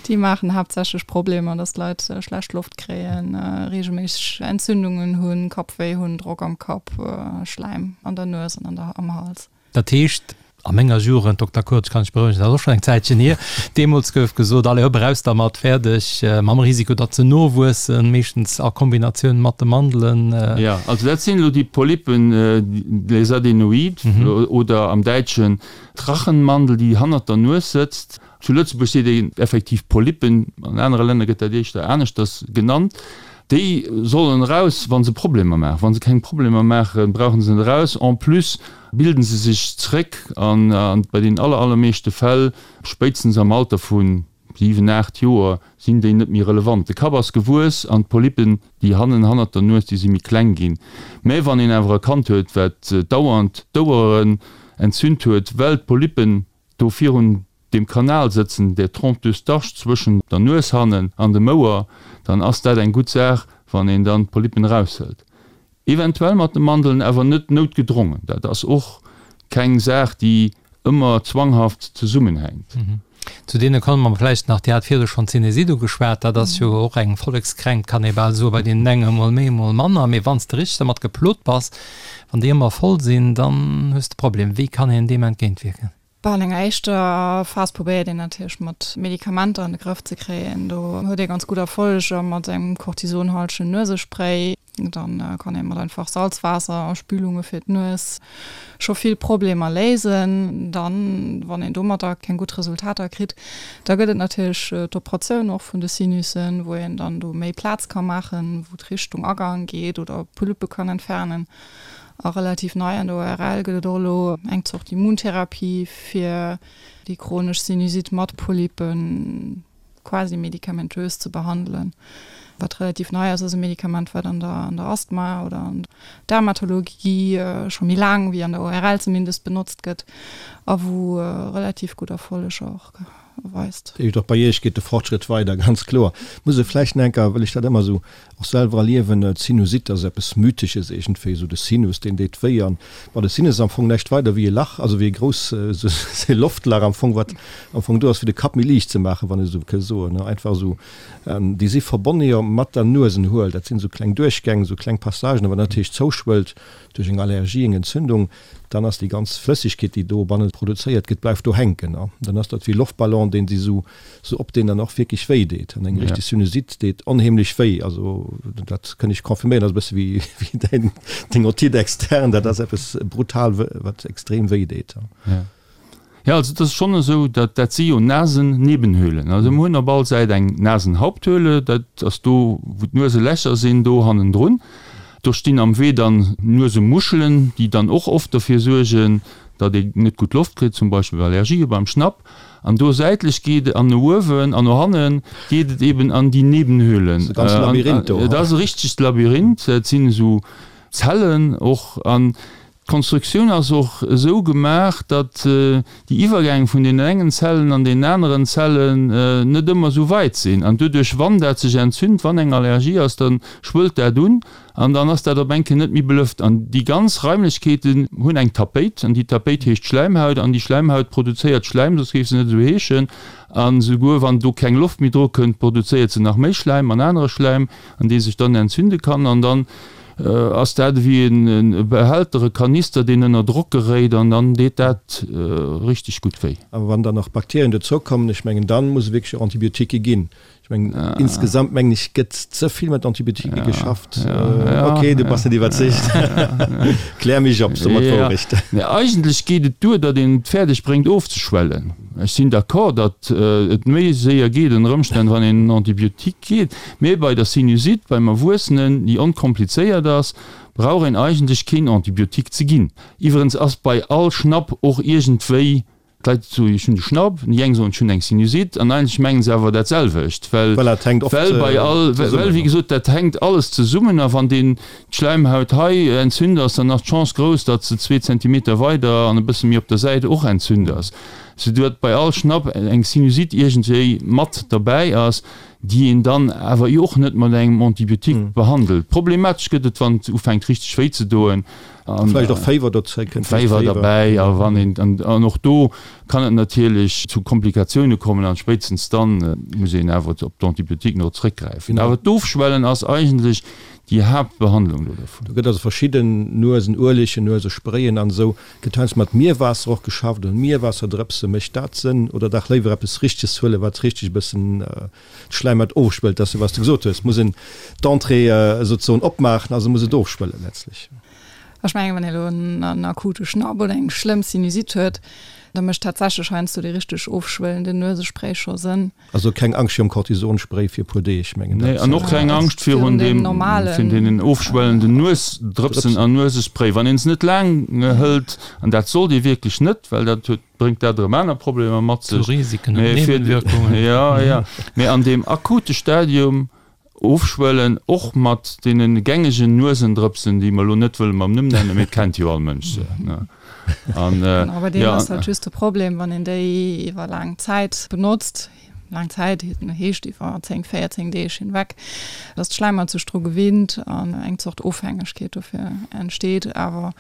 Déi maachen haaptsächlech Problemer, dass d'Leit schlecht Loft kréien, reegelméisseg Entzündungen hunn, Kappwéi hunn, Drock am Kapp, Schläim an der Nues an an der am Hals. Dat heescht, a menger Jugend, Dokter Kurz, kann ech berouegen, dat ass och schonn eng Zäitchen hier, deemools gouf gesot, allez hopp, eraus dermat, fäerdeg, mam Risiko, datt se nowuessen, meeschtens a Kombinatioun mat de Mandelen. Jo, also dat sinn elo déi Polypen, les adénoïdes oder am Däitschen d'Rachenmandel, déi hannert der Nues sëtzt. Zu Lëtzebuerg seet een effektiv Polypen, an anere Länner gëtt dat éischter aneschters genannt. Déi sollen eraus, wa se Problemer maachen. Wa se keng Problemer maachen, brauche se net eraus. En plus bilden se sech zréck an bei den aller, allermeeschte Fäll, spéitstens am Alter vu 7, 8 Joer, sinn déi net méi relevant. De Kapp ass gewuess an d'Polypen, déi hannen hannert der Nues, déi si méi kleng ginn. Mä wann een awer e Kand huet, wat dauernd d'Oueren entzünt huet, well d'Polypen do virun deem Kanal sëtzen, der Trompe d'Eustache zwëschen der Nues hannen an dem Ouer, dann ass dat eng gutt Saach, wann een dann d'Polypen eraushëlt. Eventuell mat de Mandeln, awer net noutgedrongen. Dat ass och keng Saach, déi ëmmer zwanghaft zesummenhänkt. Zu deene komme mer vläicht nach. Dir hat virdu schonn d'Sinusite ugeschwat. Dat ass jo och eng Vollekskränkt, kann ee bal soen, bei deenen enge mol méi, mol manner. Mee wann s de richteg dermat geplot bass, wann déi ëmmer voll sinn, dann hues de Problem. Wéi kann een deem entgéintwierken? Bah, an enger éischter Phas probéiert een natierlech mat Medikamenter an de Grëff ze kréien. Do huet ee ganz gutt Erfolleger mat engem kortisonhaltegen Nuesespray. Dann kann ee mat einfach Salzwaasser a Spülunge fir d'Nues scho vill Problemer léisen. Dann, wann een domatter keng gutt Resultater kritt, da gëtt et natierlech d'Operatioun och vun de Sinussen, wou een dann do méi Plaz ka maachen, wou d'Richtung Agang geet oder Polyppe kann entfernen. A relativ nei an der ORL gëtt et och elo eng Zort Immuntherapie fir déi chronesch Sinusite mat Polypen quasi medikamentös ze behandelen. Wat relativ nei ass, ass e Medikament, wat an der an der Asthma oder an der Dermatologie scho méi laang, wéi an der ORL zumindest, benotzt gëtt a wou relativ gutt Erfolleger och weist. Dat heescht, och bei Iech geet de Fortschrëtt weider, ganz kloer. Muss e vläicht nach eng Kéier, well ech dat ëmmer esou och selwer erliewen, d'Sinusite ass eppes Mythesches iergendwéi, esou de Sinus, deen deet wéi. An bon, de Sinus ass am Fong näischt weider wéi e Lach, also wéi e grouss, esou e Loftlach am Fong, wat am Fong do ass, fir de Kapp méi liicht ze maachen, wann ech esou ke soen, ne, einfach esou. Déi si verbonne jo mat der Nuesenhuel, dat sinn esou kleng Duerchgäng, esou kleng Passagen, a wann dat natierlech zouschwëllt duerch eng Allergie, eng Entzündung, dann ass déi ganz Flëssegkeet, déi dobanne produzéiert gëtt, bleift do hänken. An dann ass dat wéi e Loftballon, deen si sou sou op, deen dann och wierklech wéi deet. An eng richteg Sinusite deet onheemlech wéi. Also dat kënn ech confirméieren, dat ass e bësse wéi wéi däin deng Otite externe, dat ass eppes brutal, wat extrem wéi deet. Jo, also et ass schonn esou, datt dat si jo Nasennebenhöhlen. Also mir hunn op all Säit eng Nasenhaupthöhle, dat ass do, wou d'Nueselächer sinn, do hannendrun. Do stinn am Wee dann Nuesemuschelen, déi dann och oft derfir suergen, datt ee net gutt Loft kritt, zum Beispill bei Allergië beim Schnapp. An do säitlech geet et an no uewen an no hanne geet et eben an déi Nebenhöhlen. Dat ass e ganze Labyrinth do. Et ass e richtegt Labyrinth, et sinn esou Zellen och. An. D'Konstruktioun ass och esou gemaach, datt déi Iwwergäng vun deenen engen Zellen an deenen aneren Zellen net ëmmer esou weit sinn. An doduerch, wann dat sech entzünt, wann eng Allergie ass, da schwëllt dat un an dann ass dat op eng Kéier net méi belëft. An déi ganz Raimlechkeeten hunn eng Tapéit an déi Tapéit heescht Schläimhaut an déi Schläimhaut produzéiert Schläim, soss géif se net esou heeschen. A souguer wann do keng Loft méi dru kënnt, produzéiert se nach méi Schläim an anere Schläim, an dee sech dann entzünde kann. An dann ass dat ewéi e Behälter, e Kanister, deen ënner Drock geréit an dann deet dat richteg gutt wéi. A wann dann nach Bakterien dozoukommen, ech mengen, dann muss et wierklech och Antibiotiquë ginn. Ech mengen, insgesamt mengen ech, gëtt ze vill mat Antibiotiquë geschafft. Ok, du bass net iwwerzeegt. Klär mech op, so mer d'Wourecht. Nee, eigentlech geet et duer, datt een et fäerdeg bréngt ofzeschwellen. Ech sinn d'accord, datt et méi séier geet ënner Ëmstänn, wann een en Antibiotique geet. Mee bei der Sinusite beim Erwuessenen, déi onkomplizéiert ass, brauch een eigentlech keen Antibiotique ze ginn. Iwwerens ass bei all Schnapp och iergendwéi, d'Leit soen, ech hunn de Schnapp, déi eng soen, ech hunn eng Sinusite, an eigentlech mengen se awer dat selwecht, well well bei all, well wéi gesot, dat hänkt alles zesummen a wann deen d'Schläimhaut hei entzünt ass, dann ass d'Chance grouss, datt se zwee Zentimeter weider an e bësse méi op der Säit och entzünt ass, soudatt bei all Schnapp eng Sinusite iergendwéi mat derbäi ass. déi een dann awer jo och net mat engem Antibiotique behandelt. Problematesch gëtt et, wann et ufänkt richteg wéi ze doen. A vläicht och Féiwer dozou kënnt. Féiwer derbäi a wann een, an och do kann et natierlech zu Komplikatioune kommen an spéitstens dann muss een awer op d'Antibiotiquen och zréckgräifen. Awer d'Ofschwellen ass eigentlech déi Haaptbehandlung do dervun. Do gëtt also verschidden Nuesenuelegen, Nuesesprayen an esou. Gëtt heiansdo mat Mierwaasser och geschafft oder Mierwaasserdrëpse. Mécht dat Sënn oder dach léiwer eppes Richteges huelen, wat richteg e bëssen d'Schläimhaut ofschwëllt? Dat ass jo, wat s de gesot hues, muss een d'Entrée souzesoen opmaachen, also muss et ofschwëllen letztlich. Ech mengen, wann ee elo en akute Schnapp oder eng schlëmm Sinusite huet, da mécht tatsächlech heiansdo dee richteg ofschwëllenden Nuesespray scho Sënn. Also keng Angscht virum Cortisonspray fir e puer Deeg, mengen dat. Nee, an och keng Angscht virun deem, virun deenen ofschwellenden Nuesdrëpsen an Nuesespray. Wann een se net laang hëlt, an dat sollt ee wierklech net, well dat huet, bréngt dat erëm aner Problemer mat sech. Zu Risiken und Nebenwirkungen. Jo, jo. Mee an deem akute Stadium Ofschwëllen, och mat deene gängegen Nuesendrëpsen, déi mer elo net wëlle mam Numm nennen, mee et kennt jo all Mënsch se, ne? An, Genau, bei deenen ass halt just de Problem, wann een déi iwwer laang Zäit benotzt, laang Zäit heescht iwwer 10, 14 Deeg hinweg, dass d'Schläimhaut sech dru gewinnt an eng Zort Ofhängegkeet dofir entsteet. Awer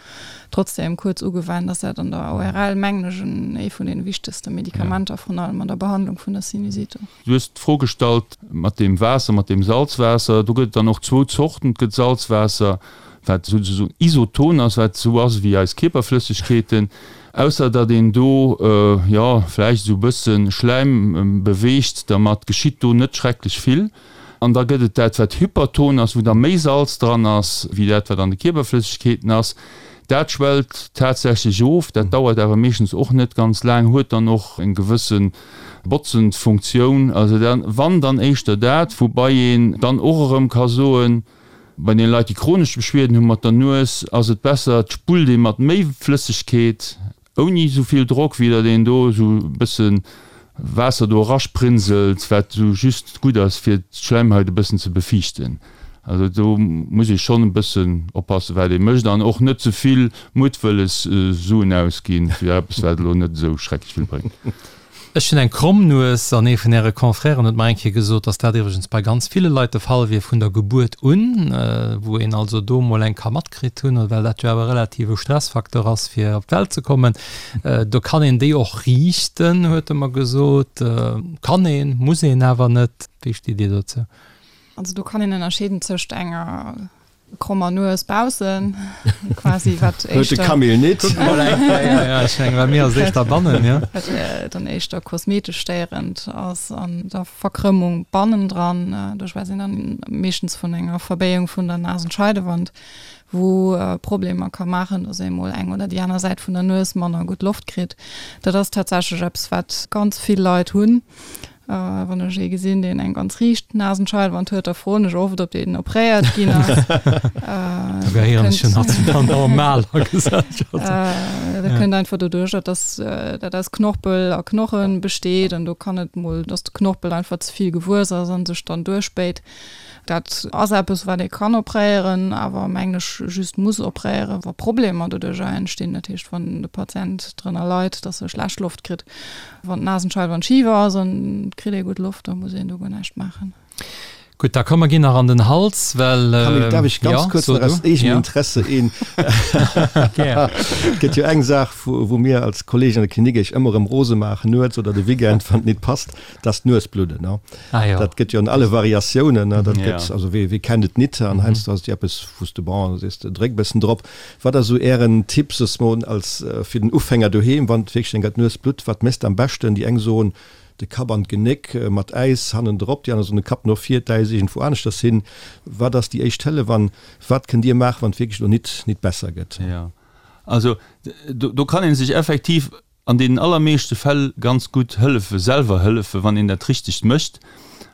trotzdem kuerz ugewennt ass dat an der ORL, mengen ech, ee vun deene wichtegste Medikamenter, vrun allem an der Behandlung vun der Sinusite. Du hues d'Fro gestallt mat deem Waasser, mat deem Salzwaasser. Do gëtt et dann och zwou Zorten. Et gëtt Salzwaasser, wat souzesoen isoton ass, wat esou ass ewéi eis Kierperflëssegkeeten, ausser datt een do, jo, vläicht esou e bësse Schläim beweegt. Dermat geschitt do net schrecklech vill. An da gëtt et dat, wat hyperton ass, wou da méi Salz dran ass, wéi dat, wat an de Kierperflëssegkeeten ass. Dat schwellt tatsächlech of. Dat dauert awer meeschtens och net ganz laang, huet dann och eng gewësse Botzend Funktioun, also dann, wann dann éischter dat, woubai een dann och erëm ka soen, bei den Leit déi chronesch Beschwierden hu mat der Nues, ass et besser et spullt ee mat méi Flëssegkeet ouni esou vill Drock, wéi datt een do esou e bësse Waasser do erasprinselt, wat esou just gutt ass fir d'Schläimhaut e bëssen ze befiichten. Also do muss ee schonn e bëssen oppassen, wat ee mécht an och net ze vill muttwëlles Suen ausginn fir eppes, wat elo net esou schrecklech vill bréngt. Ech hunn eng kromm Nues an ee vun Äre Confrèren huet mer eng Kéier gesot, dass dat iwwregens bei ganz ville Leit de Fall wier vun der Gebuert un, wou een also do mol eng ka matkritt hunn, well dat jo awer relativ e Stressfacteur ass fir op d'Welt ze kommen. Do kann een déi och riichten, huet e mer gesot. Kann een, muss een awer net. Wéi stitt Dir dozou? Also do kann een ënnerscheeden tëscht enger krommer Nues baussen quasi wat Huet de Camille nit. Kuck mol eng Kéier, ja, ech mengen bei mir ass et éischter bannen, ja. Wat dann éischter kosmetesch stéierend ass an der Verkrëmmung bannendran. Do schwätzt een dann meeschtens vun enger Verbéiung vun der Nasenscheidewand, wou Problemer ka maachen, dass ee mol eng oder déi aner Säit vun der Nues manner gutt Loft kritt. Dat ass tatsächlech eppes wat ganz vill Leit hunn. Wann ech ee gesinn, deen eng ganz riicht Nasenscheidewand huet, da froen ech oft, ob deen opréiert ginn ass. Da gehéieren ech jo nach zu der normaler Gesellschaft. Dat kënnt einfach doduercher, dass dat aus Knorpel a Knoche besteet an do kann et mol, dass de Knorpel einfach ze vill gewuess ass a sech dann duerchbéit. Dat ass eppes, wat ee kann opréieren, awer mengen ech just muss opréieren, wa Problemer doduercher entstinn. Dat heescht, wann de Patient drënner leit, dass e schlecht Loft kritt. Wann d'Nasenscheidewand schif ass an et kritt ee gutt Loft, da muss een do guer näischt maachen. Gutt, da komm mer ginn nach an den Hals, well. Camille, darf ech ganz kuerz nach aus eegenem Interesse een. Gär. Et gëtt jo eng Saach, wou mir als Kollegen an der Klinik iech ëmmer erëm rose maachen, nuets oder de Weekend, wann et nit passt, dat ass d'Nuesbludden. Ah jo. Dat gëtt jo an alle Variatiounen, dat gëtt, also wee, wee kennt et nit? An heiansdo ass et jo eppes, wou s de, bon, da sees de, dréck e bëssen drop. Wat ass esou ären Tipp, soss mol als fir den Ufänger doheem, wann et wierklech enker d'Nues blutt, wat méchs de am beschten? Déi eng soen, de Kapp an d'Genéck mat Äis hannendrop, déi aner soen, de Kapp no vir, d'Äis iergendwou aneschters hin. Wat ass déi éischt Hëllef an wat kënnt Dir maachen, wann et wierklech elo nit nit besser gëtt? Jo, also do kann ee sech effektiv an deenen allermeeschte Fäll ganz gutt hëllefe, selwer hëllefen, wann een dat richtegt mécht,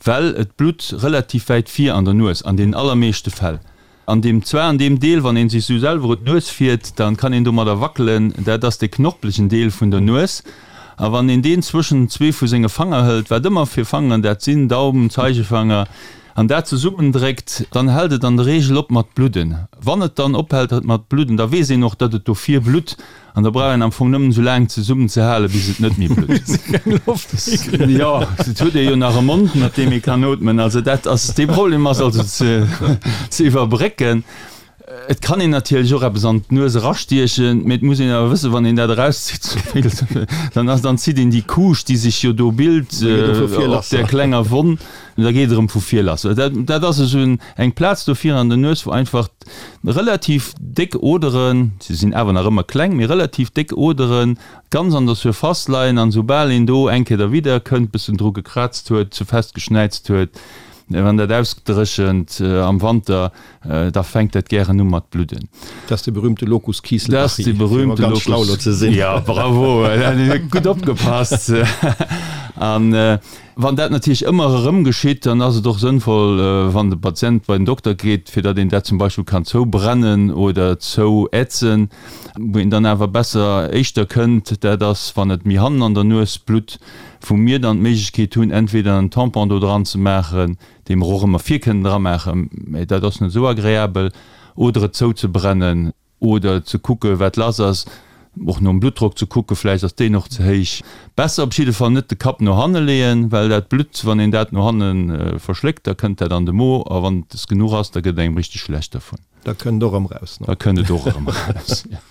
well et blutt relativ wäit vir an der Nues, an deenen allermeeschte Fäll. An deem, zwar an deem Deel, wann ee sech sou selwer un d'Nues fiert, da kann een domadder wackelen, dat ass dee knorpelegen Deel vun der Nues, a wann een deen zwëschen zwee vu senge Fanger hëlt, wat ëmmer fir Fangeren dat sinn, Daumen, Zeigefanger, an dat zesummendréckt, dann hält et an der Reegel op mat bludden. Wann et dann ophält mat bludden, da weess een och, datt et do vir blutt, An da brauch een am Fong nëmmen esou laang zesummen ze halen, bis et net méi blutt. Bis ee keng Loft méi kritt. Jo, et huet ee jo nach e Mond, mat deem ee kann ootmen. Also dat ass, dee Problem ass also ze, ze iwwerbrécken. Et kann een natierlech och eppes an d'Nues erastiechen, mee et muss een awer wëssen, wann een dat erauszitt, dann ass, dann zitt een déi Couche, déi sech jo do bilt, op där klenger Wonn, da geet et erëm vu vir lass. Dat, dat ass esou eng Plaz do vir an der Nues, wou einfach Relativ déck Oderen, se sinn awer nach ëmmer kleng, mee relativ déck Oderen, ganz an der Surface leien an soubal een do eng Kéier derwidder kënnt, bëssen dru gekrazt huet, ze fest geschnäizt huet, wann dat ausdréchent am Wanter, da fänkt dat gären u mat bludden. Dat ass de berühmte Locus Kiesselbachi, fir emol ganz schlau elo ze sinn. Jo, bravo, gutt opgepasst. An Wann dat natierlech ëmmer erëm geschitt, dann ass et och sënnvoll, wann de Patient bei den Dokter geet, fir datt een dat zum Beispill kann zoubrennen oder zouätzen. Wou een dann awer besser éischter kënnt, dat ass, wann et méi hannen an der Nues blutt, wou mir dann d'Méiglechkeet hunn, entweder en Tampon do dran ze maachen, dee mer och ëmmer vir kënnen dramaachen, mä dat ass net esou agreabel, oder et zouzebrennen. Oder ze kucke wat lass ass, och nom Bluttdrock ze kucke, vläicht ass deen och ze héich. Besser op jidde Fall net de Kapp no hanne leeën, well dat Blutt, wann een dat no hanne verschléckt, da kënnt dat an de Mo a wann et genuch ass, da gëtt et engem richteg schlecht dervun. Da kënnt et och erëm raus. Da kënnt et och erëm raus, jo.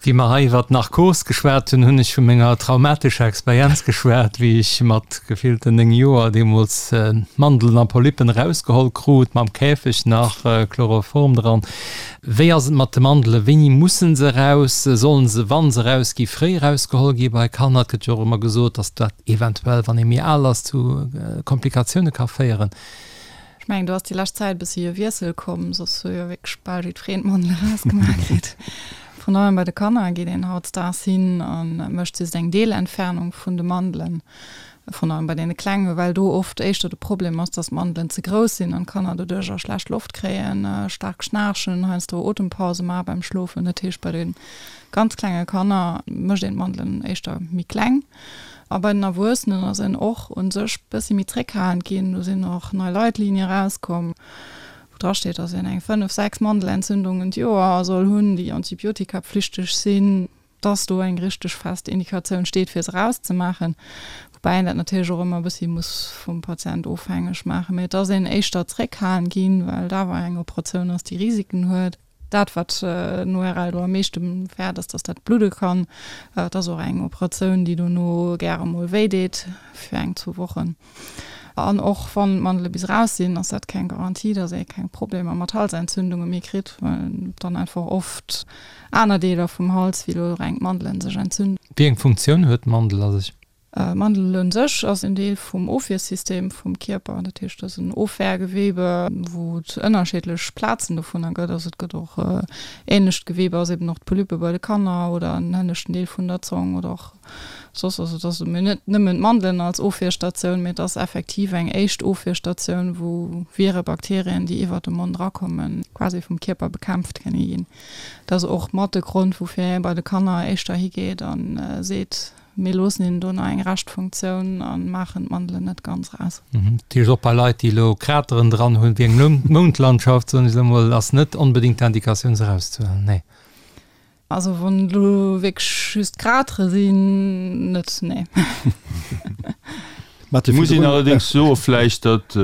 Wéi mer hei iwwer d'Narkos geschwat hunn, hunn ech vu menger traumatescher Experienz geschwat, wéi ech mat gefillten 9 Joer deemools Mandelen a Polypen erausgeholl krut, mam Käfeg nach, Chloroform dran. Wéi ass et mat de Mandelen? Wéini mussen se eraus? Sollen se, wa se erausgi, fréi erausgeholl gi bei Kanner? Et gëtt jo och ëmmer gesot, datt dat eventuell, wann ee méi al ass, zu Komplikatioune ka féieren. Ech mengen, do ass déi lescht Zäit e bëssi e Wiessel komm, soss hu jo wierklech bal jiddwereen d'Mandel erausgemaach kritt. Vrun allem bei de Kanner geet een hautdesdaags hin a mécht just eng Deelentfernung vun de Mandelen, vrun allem bei deene Klenge, well do oft éischter de Problem ass, dass d'Mandelen ze grouss sinn an d'Kanner doduercher schlecht Loft kréien, staark schnaarchen, heiansdo Otempause maache beim Schlofen. Dat heescht, bei de ganz klenge Kanner mécht een d'Mandelen éischter méi kleng. A bei den Erwuessenen ass een och u sech bëssi méi zréckhalend ginn. Do sinn och nei Leitlinie erauskomm, wou dra steet, datt een eng 5, 6 Mandelentzündungen d'Joer soll hunn, déi antibiotikapflichteg sinn, datt do eng richteg fest Indikatioun steet, fir se erauszemaachen. Woubäi een dat natierlech och ëmmer e bëssi muss vum Patient ofhängeg maachen. Mee et ass een éischter zréckhalend ginn, well et awer eng Operatioun ass, déi Risiken huet. Dat wat den ORL do am meeschte fäert ass, datt dat bludde kann. Et ass och eng Operatioun, déi dono gäre mol wéi deet fir eng, zwou Wochen. An och wann d'Mandele bis eraus sinn, ass dat keng Garantie, datt ee keng Problemer mat Halsentzündunge méi kritt, well dann einfach oft aner Deeler vum Hals, wéi elo reng d'Mandelen, sech entzünden. Wéi eng Funktioun huet d'Mandel a sech? D'Mandel un sech ass en Deel vum Ofwiersystem vum Kierper. Dat heescht, et ass en Ofwehrgewebe, wou et ënnerscheedlech Plazen dovunner gëtt. Also et gëtt och ähnlecht Gewebe ass eben och d'Polype bei de Kanner oder en hënneschten Deel vun der Zong oder och soss. Also et ass mir net nëmmen d'Mandelen als Ofwierstatioun, mee et ass effektiv eng éischt Ofwierstatioun, wou Vire, Bakterien, déi iwwert de Mond erakommen, quasi vum Kierper bekämpft kënne ginn. Dat ass och mat de Grond, woufir ee bei de Kanner éischter higeet a seet, Mir loossen hinnen do nach eng Reschtfunktioun a maachen d'Mandelen net ganz raus. Dat heescht, och bei Leit, déi elo Krateren dran hunn, wéi eng Moundlandschaft, soen ech elo mol, ass net onbedéngt d'Indikatioun, se erauszehuelen, nee? Also wann et elo wierklech just Kratere sinn, net, nee. Et muss een allerdéngs soe vläicht, datt,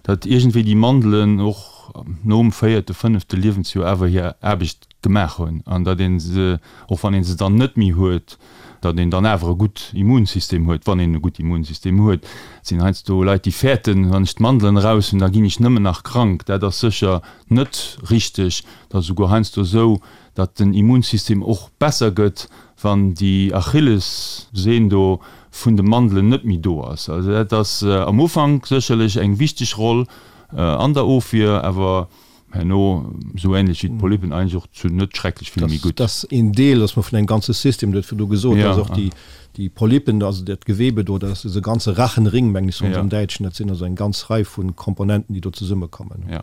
datt iergendwéi déi Mandelen och nom véierte, fënnefte Liewensjoer awer hir Aarbecht gemaach hunn an datt ee se, och wann ee se dann net méi huet, datt een dann awer e gutt Immunsystem huet, wann een e gutt Immunsystem huet. Et sinn heiansdo Leit, déi fäerten, wann ech d'Mandelen eraus hunn, da ginn ech nëmmen nach krank. Dat ass sécher net richteg. Et ass esouguer heiansdo esou, datt den Immunsystem och besser gëtt, wann déi Achillessehn do vun de Mandelen net méi do ass. Also dat ass am Ufank sécherlech eng wichteg Roll an der Ofwier, awer Herno, esou ähnlech wéi d'Polypen, eigentlech och zu net schrecklech vill méi gutt. Dat ass een Deel, dass mer vun engem ganze System, du huet virdu gesot, dass och déi, déi Polypen, also dat Gewebe do, dat ass e ganze Rachenring, mengen ech, soen se am Däitschen, dat sinn also eng ganz Rei vu Komponenten, déi do zesummekommen. Ja.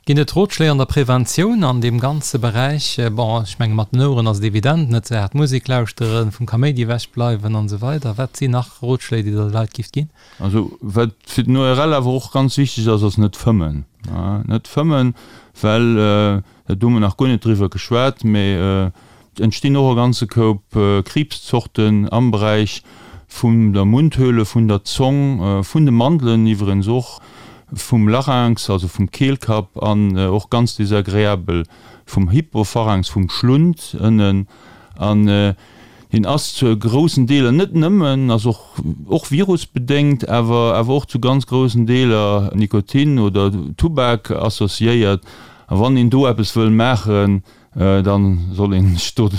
Ginn et Rotschléi an der Preventioun an deem ganze Beräich? Bon, ech menge mat den Oueren ass et evident, net ze haart Musek lauschteren, vum Kaméidi ewechbleiwen an esou weider. Wat sinn nach Rotschléi, déi Der de Leit gifft ginn? Also wat fir den ORL awer och ganz wichteg ass, ass net fëmmen. Net fëmmen, well, dat hu mer nach guer net driwwer geschwat, mä et entstinn och e ganze Koup Kriibszorten am Beräich vun der Mundhöhle, vun der Zong, vun de Mandelen iwwerens och, vum Larynx, also vum Keelkapp an och ganz desagreabel vum Hypopharynx, vum Schlund ënnen. An Hien ass zu groussen Deeler, net nëmmen, ass och och virusbedéngt, awer awer och zu ganz groussen Deeler Nikotin oder Tubak associéiert. A wann een do eppes wëll maachen, da soll een sech do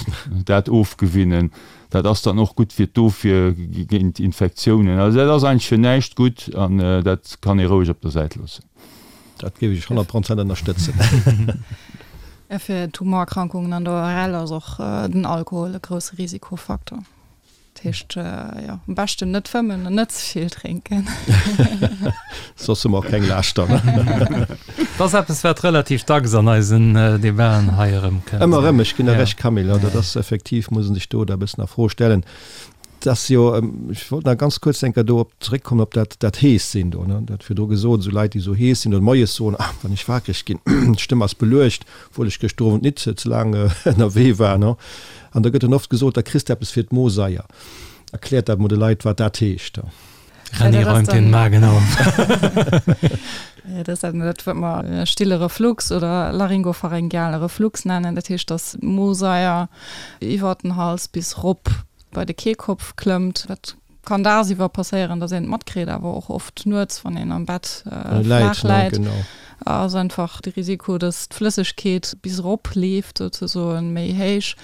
dat ofgewinnen. Dat ass dann och gutt fir d'Ofwier géint Infektiounen. Also dat ass eigentlech fir näischt gutt an dat kann ee roueg op der Säit loossen. Dat géif ech 100 Prozent ënnerstëtzen. Fir Tumorerkrankungen an der ORL ass och den Alkohol e grousse Risikofaktor. Dat heescht, jo, am beschten net fëmmen an net ze vill drénken. Soss hu mer och keng Laaschter. Dat ass eppes, wat relativ dacks an eisen Debaten hei erëmkënnt. Ëmmer erëm, ech ginn der Recht, Camille. Dat ass effektiv, muss ee sech do da e bëssen a Fro stellen. Et ass jo, ech wollt nach ganz kuerz eng Kéier do op zeréckkommen op dat, dat Hees-Sinn do, ne. Dat virdru gesot, esou Leit, déi esou hees sinn oder moies soen, Ah, wann ech wakereg ginn, d'Stëmm ass beluecht, obwuel ech gëschter Owend nit ze laang ënnerwee war, ne. An da gëtt dann oft gesot, da kriss de eppes fir d'Mosaier. Erkläert dat mol de Leit, wat dat heescht. René räumt den Magen auf. Dat ass dat, wat mer stille Reflux oder laryngopharyngeale Reflux nennen. Dat heescht, dass d'Mosaier iwwert den Hals bis rop bei de Kehlkopf klëmmt. Dat kann dagsiwwer passéieren, dass een et matkritt, awer och oft nuets, wann een am Bett flaach läit, ass einfach de Risiko, dass d'Flëssegkeet bis erop leeft souzesoen, méi héich.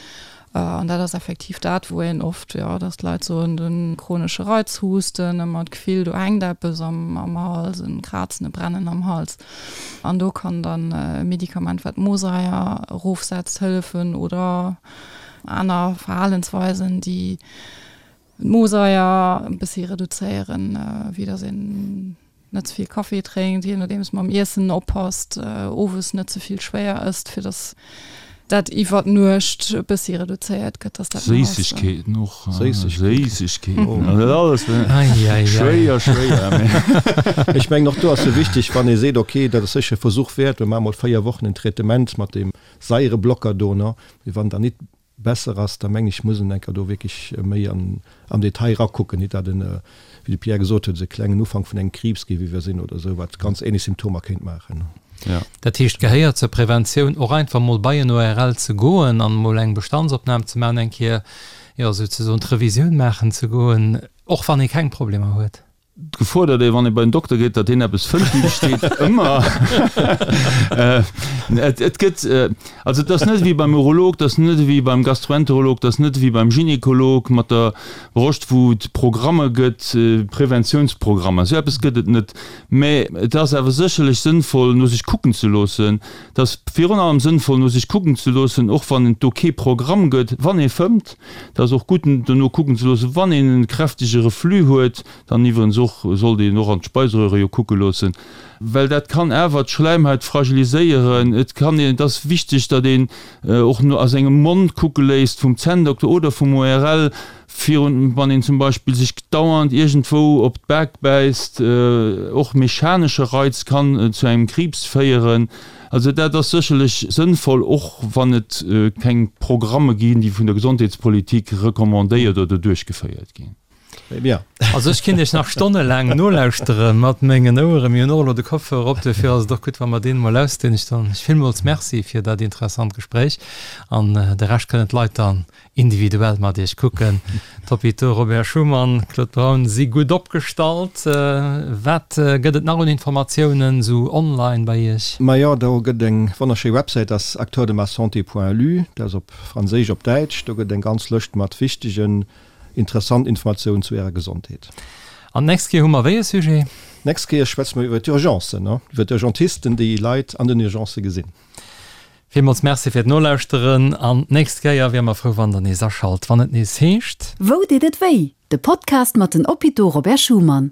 An dat ass effektiv dat, wou een oft, jo, dass d'Leit soen, de chronesche Reizhusten, ëmmer d'Gefill, do hänkt eppes am Hals, e Krazen, e Brennen am Hals. An do kann dann e Medikament, wat d'Mosaier erofsetzt, hëllefen oder Aner Verhalensweisen, déi d'Mosaier e bëssi reduzéieren, wéi datt een net ze vill Kaffi drénkt, jee nodeems mam Iessen oppasst, owes net ze vill schwéier ësst, fir datt dat iwwer d'Nuecht e bëssi reduzéiert gëtt, datt dat méi ass. Séissegkeeten och, Séissegkeeten, also dat alles, schwéier, schwéier. Ech mengen och do ass jo wichteg, wann ee seet, okay, dat ass sécher e Versuch wäert, mir maache mol 4 Wochen en Traitement mat deem Saireblocker do, ne? Mee wann dann nit besser ass, da meng ech, muss en enker do wierklech méi an am Detail rakucken, nit dat en, wéi de Pierre gesot huet, esou e klengen Ufank vun engem Kriibs géif iwwersinn oder esou, wat ganz ähnlech Symptomer kéint maachen. Ja. Dat heescht, gehéiert zur Preventioun och einfach mol bei en ORL ze goen an mol eng Bestandsopnam ze maachen, eng Kéier, jo, souzesoen d'Revisioun maachen ze goen, och wann ee keng Problemer huet? D'Gefor, datt ee wann ee bei den Dokter geet, datt deen eppes fënnt, déi besteet ëmmer. Et gëtt, also et ass net ewéi beim Urolog, et ass net ewéi beim Gastroenterolog, et ass net ewéi beim Gynekolog mat der Broscht, wou et Programme gëtt, Preventiounsprogrammer, esou eppes gëtt et net. Mä et ass awer sécherlech sënnvoll, no sech kucken ze loossen. Et ass virun allem sënnvoll, no sech kucken ze loossen, och wann et do kee Programm gëtt, wann ee fëmmt. Et ass och gutt, dono kucken ze loossen, wann een e kräftege Reflux huet. Dann iwwerens och sollt een och an d'Speiseröhre jo kucke loossen, well dat kann awer d'Schläimhaut fragiliséieren. Et kann een, et ass wichteg, datt een och no a sengem Mond kucke léisst vum Zänndokter oder vum ORL, virun wann een zum Beispill sech dauernd iergendwou op d'Bak bäisst. Och mechanesche Reiz kann zu engem Kriibs féieren. Also dat ass sécherlech sënnvoll, och wann et keng Programme ginn, déi vun der Gesondheetspolitik recommandéiert oder duerchgeféiert ginn. Très bien. Also ech kinnt iech nach stonnelaang nolauschtere mat mengen Oueren. Mir hunn och elo de Kopfhörer op, duerfir ass et och gutt, wa mer deen emol ausdinn. Ech soen iech villmools Merci fir dat interessant Gespréich an de Rescht kënnen d'Leit dann individuell mat iech kucken. D'Hôpitaux Robert Schuman, Claude Braun si gutt opgestallt. Wat gëtt et nach un Informatiounen esou online bei iech? Majo, do gëtt eng wonnerschéi Websäit, dat ass acteurdemassanté.lu, dat ass op Franséisch, op Däitsch. Do gëtt eng ganz Lëscht mat wichtegen Interessant Informatiounen zu Ärer Gesondheet. An d'nächst Kéier hu mer wéi e Sujet? D'nächst Kéier schwätze mer iwwer d'Urgencen, iwwer d'Urgentisten, déi Leit an den Urgencë gesinn. Villmools Merci fir d'Nolauschteren an d'nächst Kéier wiere mer frou, wann der nees aschalt, wann et nees heescht. Wou deet et wéi? De Podcast mat den Hôpitaux Robert Schuman.